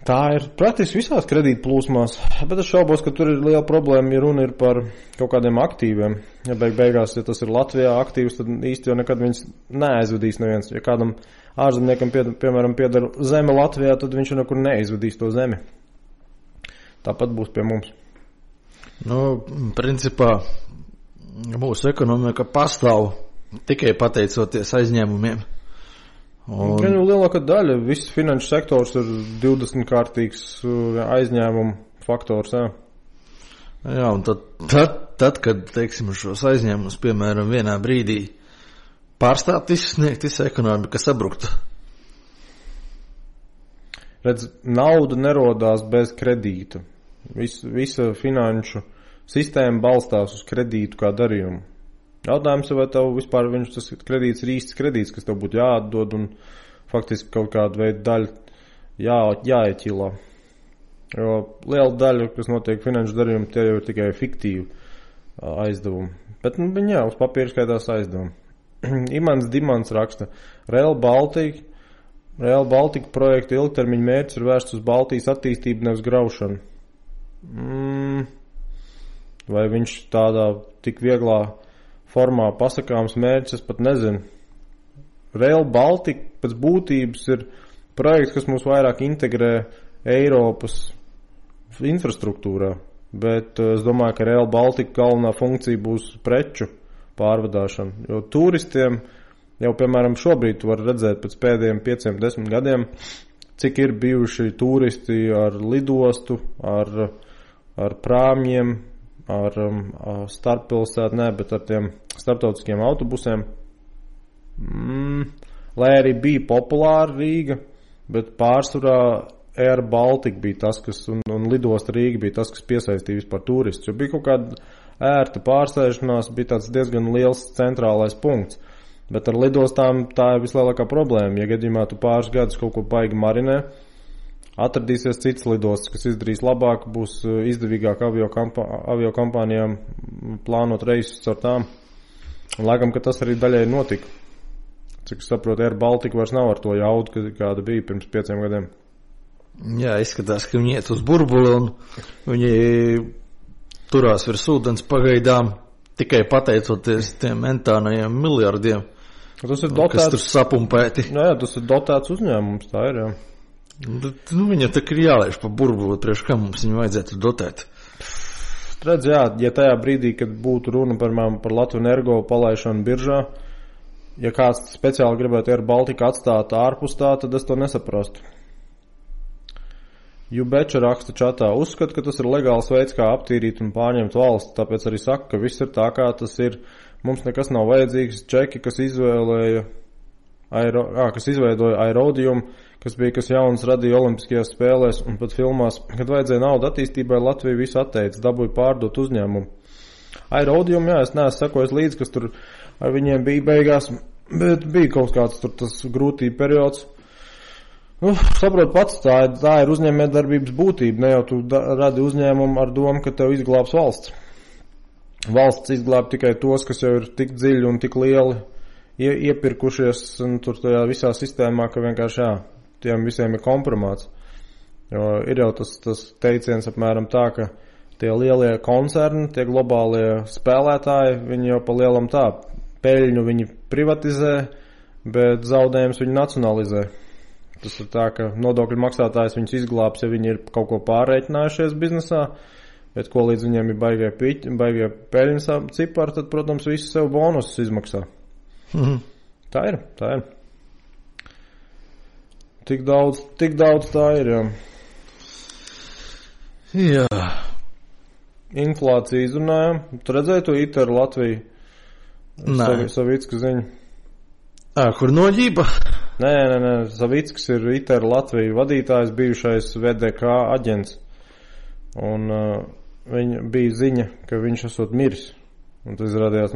Tā ir praktiski visās kredīta plūsmās, bet es šaubos, ka tur ir liela problēma, ja runa ir par kaut kādiem aktīviem. Ja beigās, ja tas ir Latvijā aktīvs, tad īsti jau nekad viņas neaizvedīs neviens. Ja kādam ārzemniekam, piemēram, piedara zeme Latvijā, tad viņš nekur neizvedīs to zemi. Tāpat būs pie mums. Nu, principā, mūsu ekonomika pastāv tikai pateicoties aizņēmumiem. Un lielākā daļa, viss finanšu sektors ir 20-kārtīgs aizņēmumu faktors, jā. Jā, un tad, kad, teiksim, šos aizņēmumus, piemēram, vienā brīdī pārstāt izsniegt, visa ekonomika sabrukta. Redz, nauda nerodās bez kredīta. Visa finanšu sistēma balstās uz kredītu kā darījumu. Jautājums, vai tev vispār tas kredīts ir īsts kredīts, kas tev būtu jāatdod un faktiski kaut kādu veidu daļu jāieķilā. Jo liela daļa, kas notiek finanšu darījumu, tie jau ir tikai fiktīvi aizdevumi. Bet, viņi jā, uz papīra skaitās aizdevumi. Imants Dimants raksta, Rail Baltica projekta ilgtermiņa mērķis ir vērsts uz Baltijas attīstību, nevis graušanu. Vai viņš tādā tik vieglā formā pasakāms mērķis, es pat nezinu. Rail Baltica pēc būtības ir projekts, kas mūs vairāk integrē Eiropas infrastruktūrā, bet es domāju, ka Rail Baltica galvenā funkcija būs preču pārvadāšana, jo turistiem jau, piemēram, šobrīd var redzēt pēc pēdējiem 5-10 gadiem, cik ir bijuši turisti ar lidostu, ar prāmjiem, ar starppilsētu, bet ar tiem starptautiskiem autobusiem. Lai arī bija populāra Rīga, bet pārsvarā Air Baltica bija tas, kas, un lidosta Rīga bija tas, kas piesaistīja vispār turistus. Jo bija kaut kāda ērta pārsēšanās, bija tāds diezgan liels centrālais punkts. Bet ar lidostām tā ir vislielākā problēma. Ja gadījumā tu pāris gadus kaut ko baigi marinē, atradīsies cits lidostas, kas izdarīs labāk, būs izdevīgāk aviokompānijām plānot reisus ar tām. Un laikam, ka tas arī daļai notika. Cik es saprotu, Air Baltica vairs nav ar to jaudu, kāda bija pirms 5 gadiem. Jā, izskatās, ka viņi iet uz burbuli un viņi turās virs ūdens pagaidām tikai pateicoties tiem mentānajiem miljardiem, tas ir dotēts, kas tur sapumpēti. Jā, tas ir dotēts uzņēmums, tā ir, jā. Viņa tā ir jālaiž pa burbuli, priekš kā mums viņu vajadzētu dotēt. Redz, jā, ja tajā brīdī, kad būtu runa par Latviju Energo palaišanu biržā, ja kāds speciāli gribētu Air Baltica atstāt ārpus tā, tad es to nesaprastu. Jubeča raksta čatā, uzskata, ka tas ir legāls veids, kā aptīrīt un pārņemt valsts, tāpēc arī saka, ka viss ir tā, kā tas ir. Mums nekas nav vajadzīgs. Čeki, kas izveidoja aerodījumu, kas jauns radīja olimpiskajās spēlēs un pat filmās, kad vajadzēja naudu attīstībai, Latvija visu atteica, dabūja pārdot uzņēmumu. Aerodījumu, jā, es neesmu sekojis līdz, kas tur ar viņiem bija beigās, bet bija kaut kāds tur tas grūtība periods. Saprot pats, tā ir uzņēmējdarbības būtība, ne jau tu radi uzņēmumu ar domu, ka tev izglābs valsts. Valsts izglāb tikai tos, kas jau ir tik dziļi un tik lieli iepirkušies un tur tajā visā sistēmā, ka vienkārši jā, tiem visiem ir kompromāts. Jo ir jau tas teiciens apmēram tā, ka tie lielie koncerni, tie globālie spēlētāji, viņi jau pa lielam tā, peļņu viņi privatizē, bet zaudējums viņi nacionalizē. Tas ir tā, ka nodokļu maksātājs viņus izglābs, ja viņi ir kaut ko pārreikinājušies biznesā, bet ko līdz viņiem ir baigie peļņas cipari, tad, protams, visi sev bonusus izmaksā. Tā ir. Tik daudz tā ir, jā. Jā. Inflācija izrunājam. Tu redzēji to ITER Latviju? Nē. Savicka ziņa. Kur noģība? Nē. Savickis ir ITER Latviju vadītājs, bijušais VDK aģents. Un viņa bija ziņa, ka viņš esot miris. Un tas izrādījās,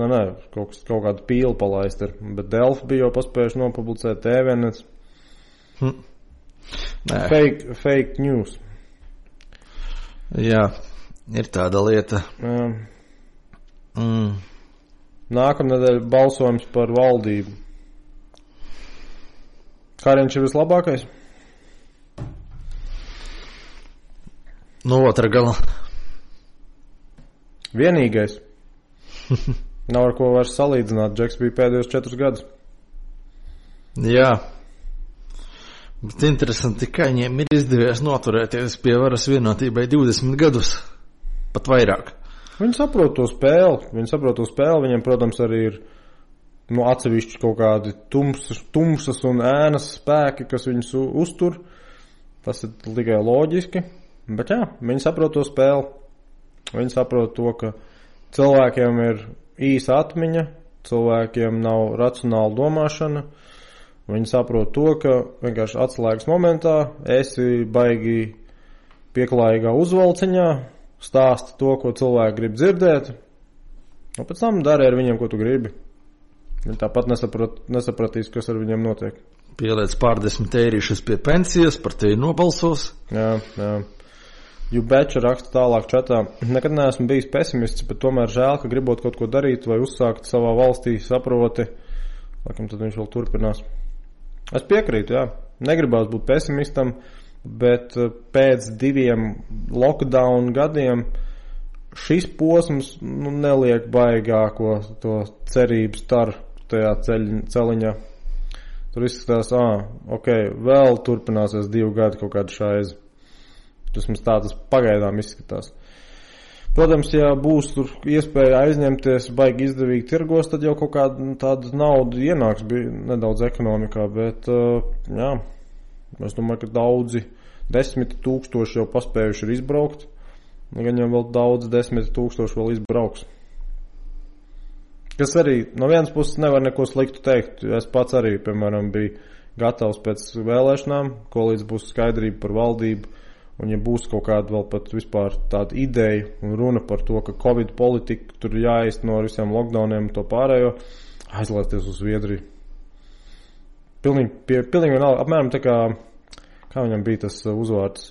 kaut kādu pīli palaist ir. Bet Delfi bija jau paspējuši nopublicēt TVNets. Fake news. Jā, ir tāda lieta. Nākamnedēļ balsojums par valdību. Kariņš ir vislabākais? No otra gala. Vienīgais. Nav ar ko vairs salīdzināt. Džeks bija pēdējos 4 gadus. Jā. Bet interesanti, ka viņiem ir izdevies noturēties pie varas vienotībai 20 gadus. Pat vairāk. Viņi saprot to spēli. Viņiem, protams, arī ir atsevišķi kaut kādi tumsas un ēnas spēki, kas viņus uztur. Tas ir tikai loģiski. Bet jā, viņi saprot to spēli. Viņi saprot to, ka cilvēkiem ir īsa atmiņa, cilvēkiem nav racionāla domāšana. Viņi saprot to, ka vienkārši atslēgas momentā esi baigi pieklājīgā uzvalciņā, stāsti to, ko cilvēki grib dzirdēt, un pēc tam dari ar viņiem, ko tu gribi. Viņi tāpat nesapratīs, kas ar viņiem notiek. Pieliec pārdesmit eirīšus pie pensijas, par tevi nobalsos. Jā. Jubeča raksta tālāk čatā. Nekad neesmu bijis pesimists, bet tomēr žēl, ka gribot kaut ko darīt vai uzsākt savā valstī, saproti. Laikam tad viņš vēl turpinās. Es piekrītu, jā. Negribās būt pesimistam, bet pēc 2 lockdown gadiem šis posms neliek baigāko to cerību staru tajā celiņā. Tur izskatās, vēl turpināsies 2 gadi kaut kāda šaiza. Tas pagaidām izskatās. Protams, ja būs tur iespēja aizņemties baigi izdevīgi tirgos, tad jau kaut kāda tāda nauda ienāks nedaudz ekonomikā, bet jā, es domāju, ka daudzi 10 000 jau paspējuši ir izbraukt, gan jau vēl daudz 10 000 vēl izbrauks. Kas arī no vienas puses nevar neko sliktu teikt. Es pats arī, piemēram, biju gatavs pēc vēlēšanām, ko līdz būs skaidrība par valdību. Un ja būs kaut kāda vēl pat vispār tāda ideja un runa par to, ka Covid politika tur jāizteno ar visiem lockdowniem un to pārējo, aizlaisties uz Zviedriju. Pilnīgi vienalga, apmēram tā kā viņam bija tas uzvārds,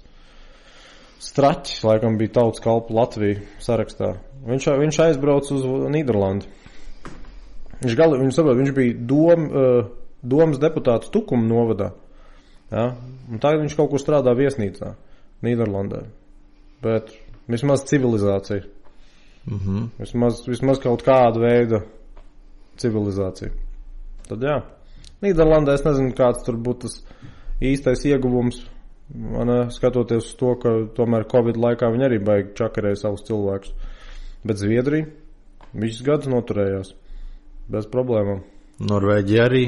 Straķis, laikam bija tautas kalpu Latviju sarakstā. Viņš aizbrauc uz Nīderlandi. Viņš bija domas deputāts Tukuma novadā. Ja? Un tagad viņš kaut kur strādā viesnīcā Nīderlandē. Bet vismaz civilizācija. Vismaz kaut kāda veida civilizācija. Tad jā. Nīderlandē es nezinu, kāds tur būtu tas īstais ieguvums. Skatoties uz to, ka tomēr Covid laikā viņi arī baigi čakarēja savus cilvēkus. Bet Zviedrija visus gadus noturējās. Bez problēmām. Norvēģija arī.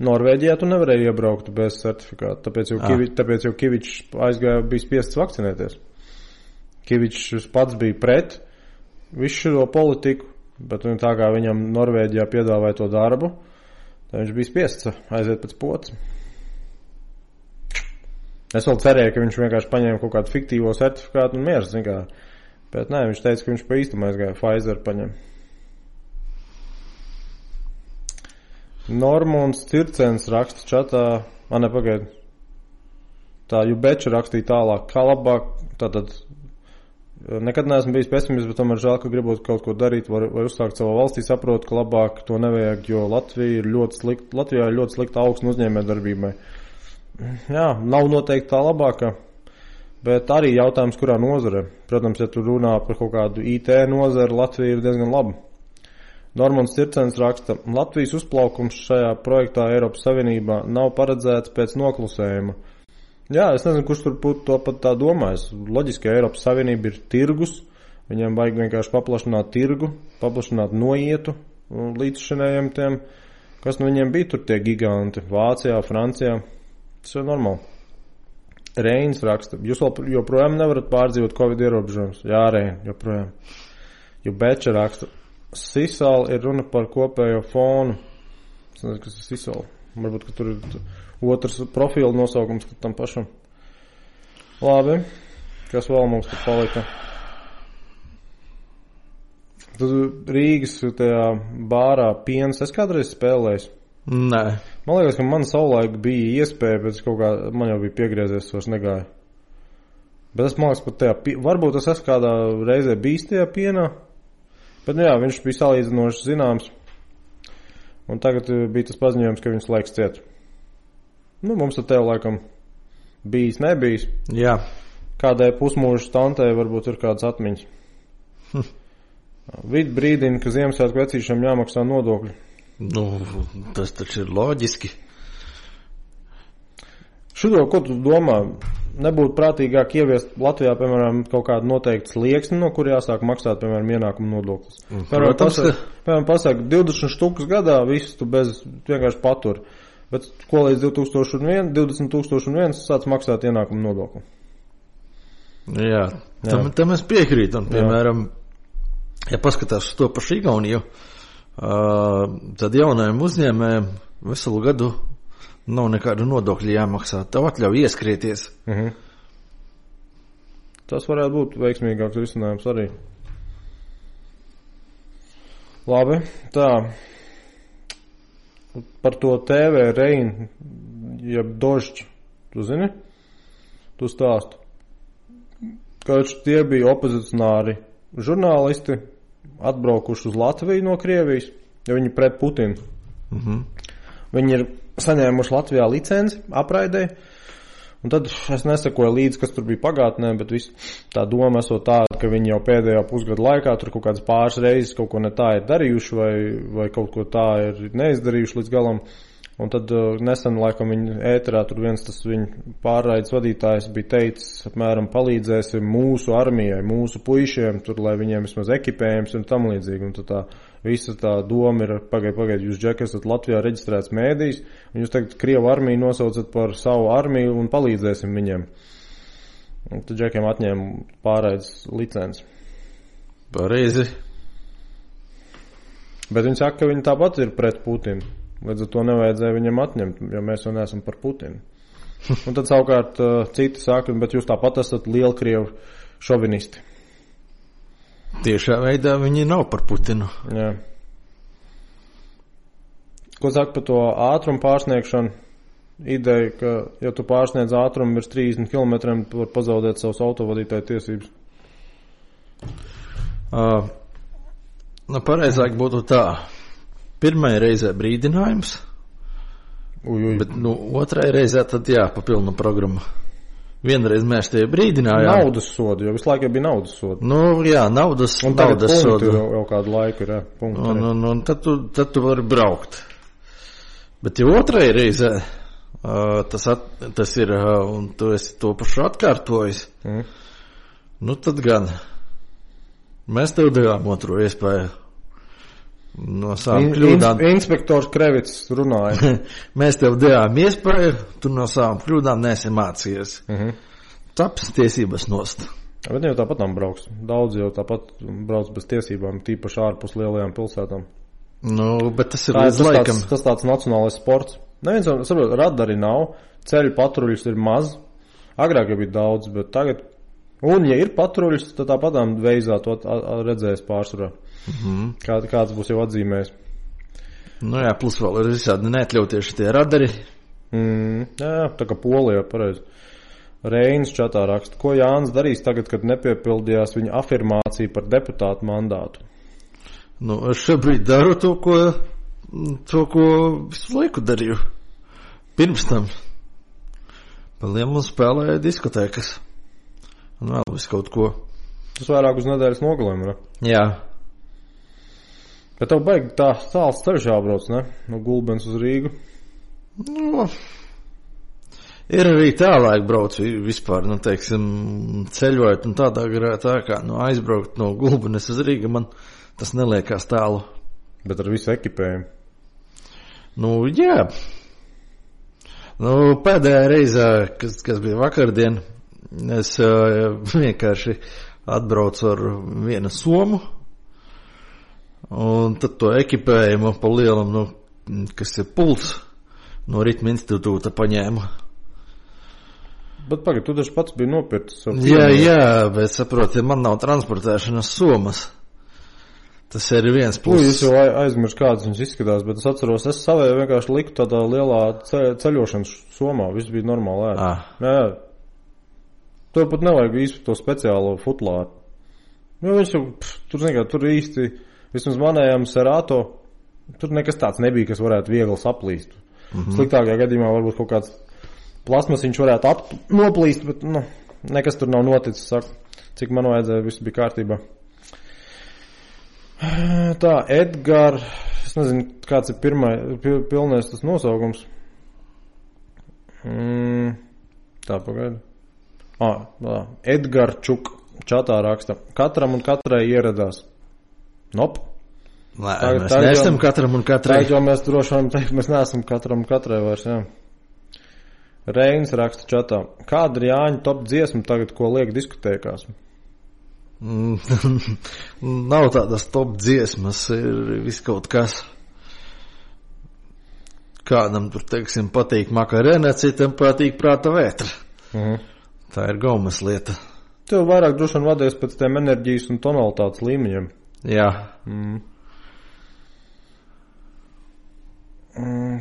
Norvēģijā tu nevarēji iebraukt bez certifikāta, tāpēc jau Kivičs bija spiests vakcinēties. Kivičs pats bija pret visu šo politiku, bet tā kā viņam Norvēģijā piedāvāja to darbu, tad viņš bija spiests aiziet pēc potes. Es vēl cerēju, ka viņš vienkārši paņēma kaut kādu fiktīvo certifikātu un mieras, bet nē, viņš teica, ka viņš pa īstam aizgāja, Pfizer paņem. Normons Circens raksta čatā, nepagaid. Tā Jubeča rakstīja tālāk, kā labāk, tātad nekad neesmu bijis pesimists, bet tomēr žēl, ka gribot kaut ko darīt vai uzsākt savā valstī, saprotu, ka labāk to nevajag, jo Latvijā ir ļoti slikta augsne uzņēmējdarbībai. Jā, nav noteikti tā labākā, bet arī jautājums, kurā nozare. Protams, ja tu runā par kaut kādu IT nozari, Latvija ir diezgan laba. Normons Circens raksta, Latvijas uzplaukums šajā projektā Eiropas Savienībā nav paredzēts pēc noklusējuma. Jā, es nezinu, kurš tur būtu to pat tā domājis. Loģiski, Eiropas Savienība ir tirgus, viņiem vajag vienkārši paplašināt tirgu, paplašināt noietu līdzšinējiem tiem, kas no viņiem bija tur tie giganti, Vācijā, Francijā. Tas ir normāli. Reins raksta, jūs joprojām nevarat pārdzīvot Covid ierobežojumus. Jā, Rein, joprojām. Jubeča raksta, Sisal ir runa par kopējo fonu. Es nezinu, kas ir Sisal. Varbūt, ka tur ir otrs profila nosaukums tam pašam. Labi. Kas vēl mums tur palika? Tad Rīgas tajā bārā piens es kādreiz spēlējis? Nē. Man liekas, ka man savulaik bija iespēja, bet kaut kā man jau bija piegriezies, vairs negāja. Bet es man liekas, pat tajā, varbūt es esmu kādā reizē bijis tajā pienā, bet jā, viņš bija salīdzinoši zināms. Un tagad bija tas paziņojums, ka viņš laiks ciet. Nu, mums tad tev laikam bijis, nebijis. Jā. Kādai pusmūžu tantei varbūt ir kādas atmiņas. Vid brīdina, ka Ziemassvētku vecīšiem jāmaksā nodokļi. Nu, tas taču ir loģiski. Šito, ko tu domā, nebūtu prātīgāk ieviest Latvijā, piemēram, kaut kādu noteiktu slieksni, no kur jāsāk maksāt, piemēram, ienākumu nodoklis? Piemēram, pasaka 20 štukas gadā, visus tu vienkārši patur. Bet ko līdz 20,001 sāc maksāt ienākumu nodokli? Jā. Tam es piekrītu. Piemēram, ja paskatās uz to pašu Igauniju, tad jaunajiem uzņēmējiem veselu gadu nav nekādu nodokļu jāmaksā. Tev atļauj ieskrieties. Tas varētu būt veiksmīgāks risinājums arī. Labi, tā. Par to TV Rein, jeb Dožķi, tu zini? Tu stāstu. Kāds tie bija opozicionāri žurnālisti, atbraukuši uz Latviju no Krievijas, jo viņi pret Putinu. Viņi ir saņēmuši Latvijā licenci apraidē, un tad es nesakoju līdzi, kas tur bija pagātnē, bet tā doma esot tāda, ka viņi jau pēdējā pusgada laikā tur kaut kādas pāris reizes kaut ko ne tā ir darījuši vai kaut ko tā ir neizdarījuši līdz galam. Un tad nesen, laikam, viņa ēterā tur viens tas viņa pārraides vadītājs bija teicis, apmēram palīdzēsim mūsu armijai, mūsu puišiem, tur, lai viņiem vismaz ekipējums un tam līdzīgi. Un tad tā visa tā doma ir, pagaid, jūs, Džek, esat Latvijā reģistrēts mēdījis, un jūs tagad Krievu armiju nosaucat par savu armiju un palīdzēsim viņiem. Un tad Džekiem atņēma pārraides licenci. Pareizi. Bet viņi saka, ka viņi tāpat ir pret Putinu. Līdz ar to nevajadzēja viņam atņemt, jo mēs jau neesam par Putinu. Un tad savukārt citi saka, bet jūs tāpat esat lielkrievu šovinisti. Tiešā veidā viņi nav par Putinu. Jā. Ko saka par to ātrumu pārsniegšanu? Ideja, ka ja tu pārsniedz ātrumu virs 30 km, tu var pazaudēt savus autovadītāju tiesības. Pareizāk būtu tā. Pirmajā reizē brīdinājums, bet otrai reizē tad papilna programma. Vienreiz mēs tie brīdinājām. Naudas sodu, jo visu laiku bija naudas sodu. Naudas sodu. Un tagad punkti jau kādu laiku ir, punkti. Un tad tu vari braukt. Bet ja otrai reizē tas ir, un tu esi to pašu atkārtojis, tad gan mēs tev devām otro iespēju. No savām kļūdām. Inspektors Krevits runāja. Mēs tev devām iespēju, tu no savām kļūdām neesi mācījies. Taps tiesības nost. Bet jau tāpat tam brauks. Daudz jau tāpat brauc bez tiesībām, tīpaši ārpus lielajām pilsētām. Bet tas ir līdz laikam. Tas tāds nacionālais sports. Neviens jau, saprot, radari nav, ceļu patruļus ir maz. Agrāk jau bija daudz, bet tagad. Un, ja ir patruļus, tad tāpatām veizā to redzēs pārsvarā. Kāds būs jau atzīmējis. Plus vēl ir visādi neatļautieši tie radari. Jā, tā kā Polijā, pareizi. Reinis čatā raksta, ko Jānis darīs tagad, kad nepiepildījās viņa afirmācija par deputātu mandātu? Es šobrīd daru to, ko visu laiku darīju. Pirms tam. Paliem un spēlēju diskotēkas. Un vēl visu kaut ko. Tas vairāk uz nedēļas nogalēm, ne? Jā. Bet tev baigi tā tāls ceļš jābrauc, ne? No Gulbens uz Rīgu. Ir arī tālāk brauc vispār, ceļojot un tādā garā tā kā aizbraukt no Gulbenes uz Rīgu, man tas neliekās tālu. Bet ar visu ekipējumu? Jā. Pēdējā reizē, kas bija vakardien, es vienkārši atbraucu ar vienu somu. Un tad to ekipējumu pa lielam, kas ir pults, no ritma institūta paņēmu. Bet pagaid, tu taču pats biji nopircis. Jā, bet saproti, man nav transportēšanas somas. Tas ir viens pluss. Es jau aizmirsu, kādas viņas izskatās, bet es atceros, es savēju vienkārši liku tādā lielā ceļošanas somā. Viss bija normāli ēd. Jā. Tev pat nevajag īsti to speciālo futlāru. Jo viņš jau, tur īsti, vismaz manējām Serato, tur nekas tāds nebija, kas varētu viegli saplīst. Sliktākajā gadījumā varbūt kaut kāds plasmasiņš varētu noplīst, bet, nekas tur nav noticis, saku. Cik man vajadzēja, viss bija kārtībā. Tā, Edgar, es nezinu, kāds ir pilnais tas nosaukums. Tā, pagaidi. Edgar Čuk čatā raksta. Katram un katrai ieradās. Nop. Mēs neesam katram un katrai. Tā, jo mēs droši vien teikt, mēs neesam katram un katrai vairs, jā. Reinis raksta čatā. Kāda ir Jāņa top dziesma tagad, ko liek diskotēkās? Nav tādas top dziesmas, ir viss kaut kas. Kādam tur, teiksim, patīk makarēne, citam patīk prāta vētra. Tā ir gaumas lieta. Tev vairāk droši vien vadies pēc tiem enerģijas un tonalitātes līmeņiem. Jā.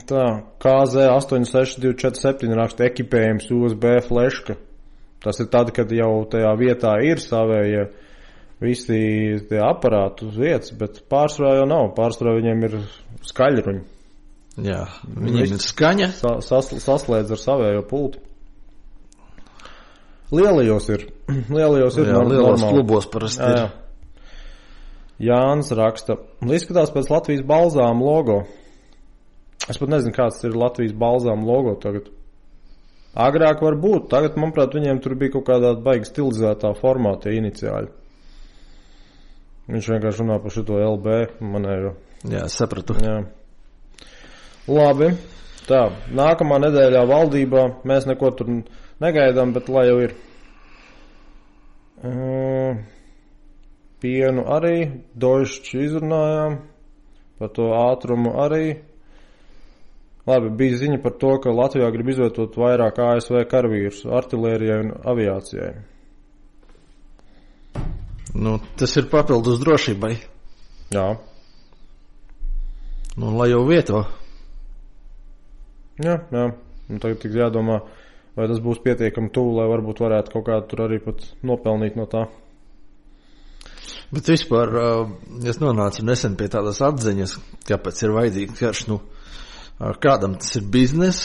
Tā, KZ86247 raksta ekipējums USB fleška. Tas ir tad, kad jau tajā vietā ir savējie visi tie aparāti uz vietas, bet pārsvarā jau nav. Pārsvarā viņiem ir skaļruņi. Jā, viņiem ir skaņa. Saslēdz ar savējo pulti. Lielajos ir. Lielajos klubos parasti ir. Jānis raksta. Izskatās pēc Latvijas balzām logo. Es pat nezinu, kāds ir Latvijas balzām logo tagad. Agrāk var būt. Tagad, manuprāt, viņiem tur bija kaut kādā baigi stilizētā formātā iniciāļi. Viņš vienkārši runā par šito LB manējo. Jā, sapratu. Jā. Labi. Tā, nākamā nedēļā valdībā mēs neko tur negaidām, bet lai jau ir. Pienu arī, Deutsche izrunājām, par to ātrumu arī. Labi, bija ziņa par to, ka Latvijā grib izvietot vairāk ASV karavīrus artilērijai un aviācijai. Tas ir papildus drošībai. Jā. Lai jau vieto. Jā. Un tagad tik jādomā, vai tas būs pietiekami tuvu, lai varbūt varētu kaut kādu tur arī pat nopelnīt no tā. Bet vispār es nonācu nesen pie tādas atziņas, kāpēc ir vajadzīgs karš. Kādam tas ir biznes,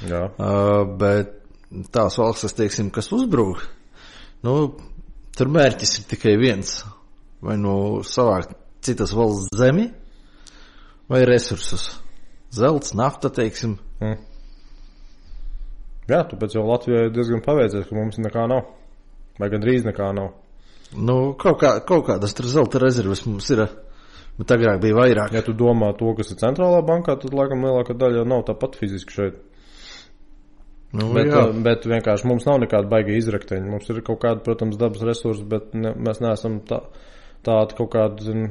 jā. Bet tās valstis, teiksim, kas uzbrūk, tur mērķis ir tikai viens. Vai savākt citas valsts zemi, vai resursus. Zelts, nafta, teiksim. Jā, tāpēc jau Latvijai diezgan paveicies, ka mums nekā nav. Vai gandrīz nekā nav. Kaut kādas tur zelta rezerves mums ir, bet agrāk bija vairāk. Ja tu domā to, kas ir centrālā bankā, tad laikam lielākā daļa jau nav tāpat fiziski šeit. Bet vienkārši mums nav nekāda baiga izrakteņa. Mums ir kaut kāda, protams, dabas resursi, bet mēs neesam tāda kaut kāda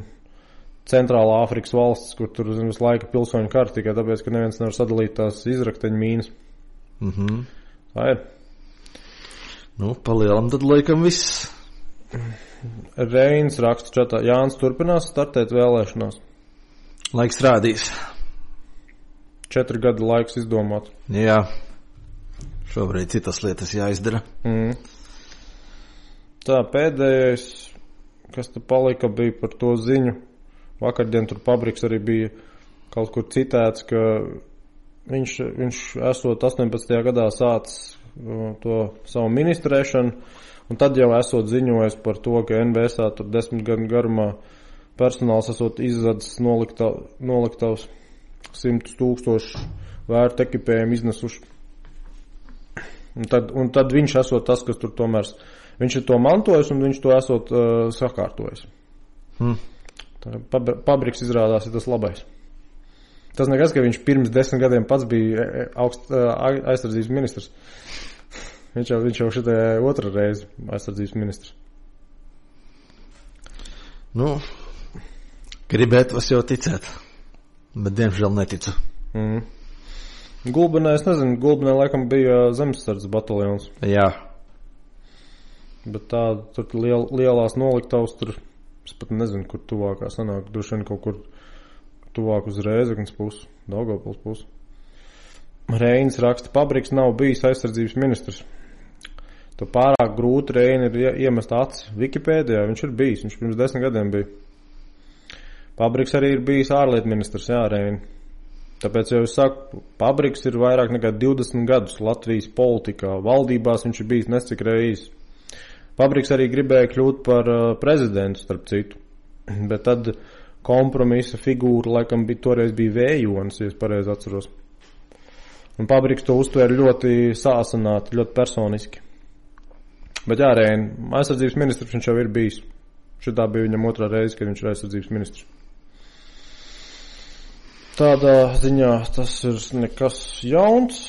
centrālā Āfrikas valsts, kur tur visu laiku pilsoņu kara tikai tāpēc, ka neviens nevar sadalīt tās izrakteņu mīnas. Tā ir. Palielam tad laikam viss. Reinis raksta čatā. Jānis turpinās startēt vēlēšanās. Laiks rādīs. 4 gadu laiks izdomāt. Jā. Šobrīd citas lietas jāizdara. Tā, pēdējais, kas te palika, bija par to ziņu. Vakardien tur Pabriks arī bija kaut kur citēts, ka viņš esot 18. gadā sācis to savu ministrēšanu, un tad jau esot ziņojis par to, ka NBSā tur 10 gadu garumā personāls esot izzadzis noliktavs 100,000 vērtu ekipējumu iznesuši. Un tad viņš esot tas, kas tur tomēr, viņš ir to mantojis un viņš to esot sakārtojis. Pabriks izrādās ir tas labais. Tas nekas, ka viņš pirms 10 gadiem pats bija aizsardzības ministrs. Viņš jau šitai otra reize aizsardzības ministrs. Gribētu es jau ticēt, bet diemžēl neticu. Gulbenē, es nezinu, Gulbenē laikam bija zemesardzes bataljons. Jā. Bet tā, tur lielās noliktavas, tur, es pat nezinu, kur tuvākā sanāk, droši vien kaut kur tuvāk uz Rēzeknes pusi, Daugavpils pusi. Reinis raksta, Pabriks nav bijis aizsardzības ministrs. To pārāk grūti Reini ir iemest acis. Wikipēdijā viņš ir bijis, viņš pirms 10 gadiem bija. Pabriks arī ir bijis ārlietu ministrs, jā, Reini. Tāpēc jau es saku, Pabriks ir vairāk nekā 20 gadus Latvijas politikā. Valdībās viņš ir bijis nescik reizes. Pabriks arī gribēja kļūt par prezidentu, starp citu. Bet tad kompromisa figūra laikam toreiz bija Vējonis, ja es pareizi atceros. Un Pabriks to uztvēra ļoti sāsināti, ļoti personiski. Bet jā, Reini, aizsardzības ministrs viņš jau ir bijis. Šitā bija viņam otrā reize, kad viņš ir aizsardzības ministrs. Tādā ziņā tas ir nekas jauns.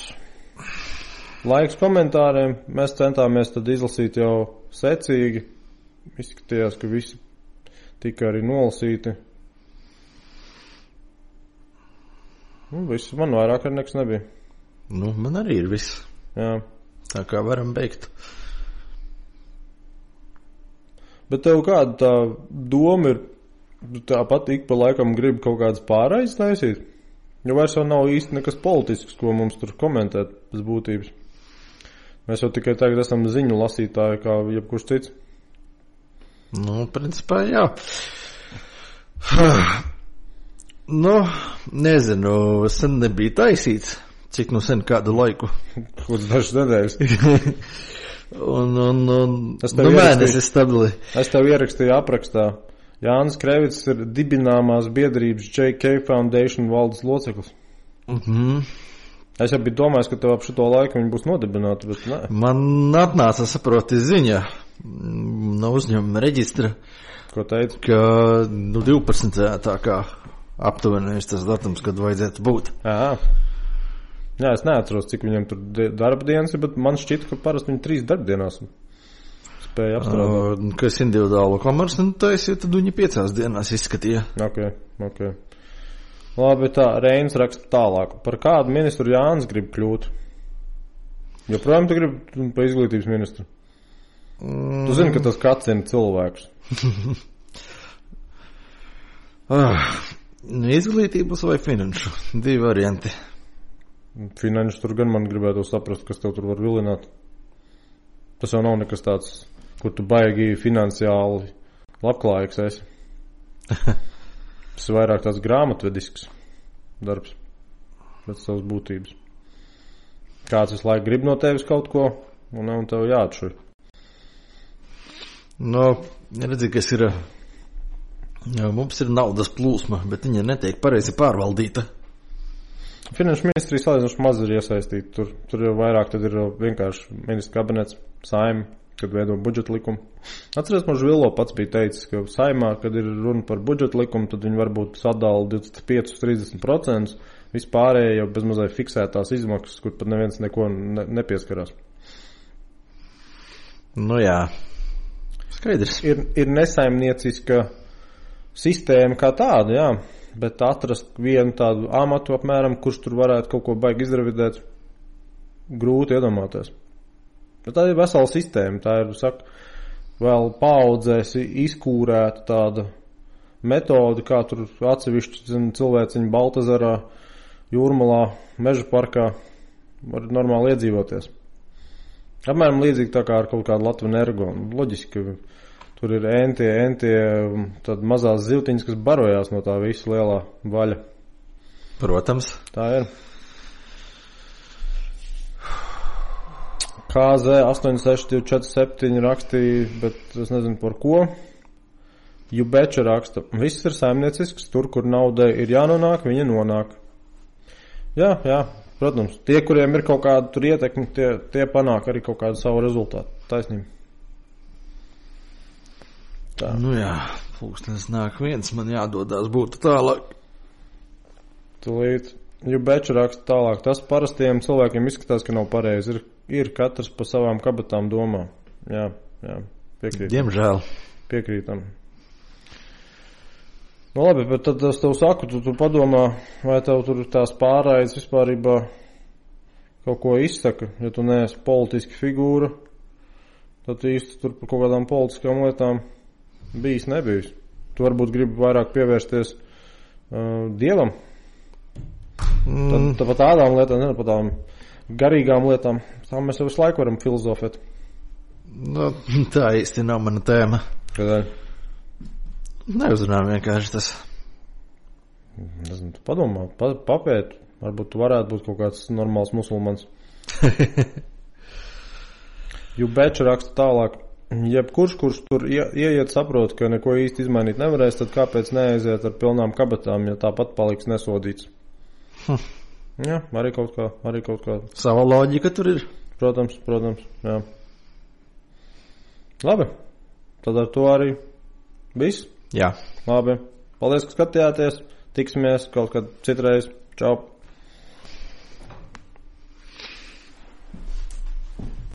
Laiks komentāriem. Mēs centāmies tad izlasīt jau secīgi. Izskatījās, ka visi tika arī nolasīti. Viss, man vairāk arī nekas nebija. Man arī ir viss. Jā. Tā kā varam beigt. Bet tev kāda tā doma ir? Tāpat ik pa laikam grib kaut kādas pārējas taisīt, jo vairs jau nav īsti nekas politisks, ko mums tur komentēt pēc būtības. Mēs jau tikai tagad esam ziņu lasītāji kā jebkurš cits. Principā jā. Nezinu, sen nebija taisīts, cik sen kādu laiku. Kaut dažas nedēļas. Mēnesis stabili. Es tev ierakstīju aprakstā. Jānis Krevits ir dibināmās biedrības JK Foundation valdes loceklis. Es jau biju domājis, ka tev ap šito laiku viņi būs nodibināti, bet nē. Man atnāca saproti ziņa no uzņēmuma reģistra. Ko teica? Ka 12. tā kā aptuveni tas datums, kad vajadzētu būt. Jā, es neatceros, cik viņam tur darba dienas ir, bet man šķita, ka parasti viņi 3 darbdienās spēja apstrādāt. Kas individuālo komerci taisīja, tad viņi 5 dienās izskatīja. Ok. Labi, tā, Reinis raksta tālāk. Par kādu ministru Jānis grib kļūt? Joprojām tu gribi pa izglītības ministru? Tu zini, ka tas kacina cilvēkus. Izglītības vai finanšu? 2 varianti. Finanšu tur gan man gribētu saprast, kas tev tur var vilināt. Tas jau nav nekas tāds, kur tu baigi finansiāli labklājīgs esi. Tas ir vairāk tāds grāmatvedisks darbs pēc savas būtības. Kāds visu laiku grib no tevis kaut ko, un tev jāatšuj. Redzi, kas ir, mums ir naudas plūsma, bet viņa netiek pareizi pārvaldīta. Finanšu ministrija salīdzinoši maz ir iesaistīta. Tur jau vairāk tad ir vienkārši ministra kabinets, saima, kad veido budžeta likumu. Atceries, man Žvilo pats bija teicis, ka saimā, kad ir runa par budžeta likumu, tad viņi varbūt sadala 25-30%, vispārējie jau bezmazai fiksētās izmaksas, kur pat neviens neko nepieskarās. Jā, skaidrs. Ir nesaimnieciska sistēma kā tāda, jā. Bet atrast vienu tādu amatu apmēram, kurš tur varētu kaut ko baigi izrevidēt, grūti iedomāties. Bet tā ir vesela sistēma, tā ir, vēl paaudzēs izkūrēta tāda metode, kā tur atsevišķi cilvēciņi Baltazarā, Jūrmalā, Meža parkā var normāli iedzīvoties. Apmēram līdzīgi tā kā ar kaut kādu Latvenergo. Loģiski, ka tur ir entie tad mazās zivtiņas, kas barojās no tā visa lielā vaļa. Protams. Tā ir. KZ 86247 rakstīja, bet es nezinu par ko. Jubeča raksta. Viss ir saimniecisks, tur, kur naudai ir jānonāk, viņa nonāk. Jā, protams. Tie, kuriem ir kaut kāda tur ietekmi, tie panāk arī kaut kādu savu rezultātu. Taisnība. Tā. Jā, pulkstenis nāk viens, man jādodās būtu tālāk. Tūlīt, Jubeča raksta tālāk. Tas parastiem cilvēkiem izskatās, ka nav pareizi. Ir katrs pa savām kabatām domā. Jā, piekrītam. Diemžēl. Piekrītam. Labi, bet tad es tev saku, tu padomā, vai tev tur tās pārājas vispārībā kaut ko izsaka, ja tu neesi politiski figūra, tad īsti tur par kaut kādām politiskām lietām nebijis. Tu varbūt gribi vairāk pievērsties Dievam. Tad par tādām lietām, ne par tādām garīgām lietām, tā mēs jau visu laiku varam filozofēt. Nu, tā īsti nav mana tēma. Kādēļ? Neuzrunājam vienkārši tas. Nezinu, tu padomā, papēt. Varbūt tu varētu būt kaut kāds normāls musulmans. Jubeča raksta tālāk. Jebkurš, kurš tur ieiet, saprot, ka neko īsti izmainīt nevarēs, tad kāpēc neaiziet ar pilnām kabatām, ja tāpat paliks nesodīts? Jā, arī kaut kā. Sava loģika tur ir. Protams, jā. Labi, tad ar to arī viss. Jā. Labi, paldies, ka skatījāties. Tiksimies kaut kad citreiz. Čau.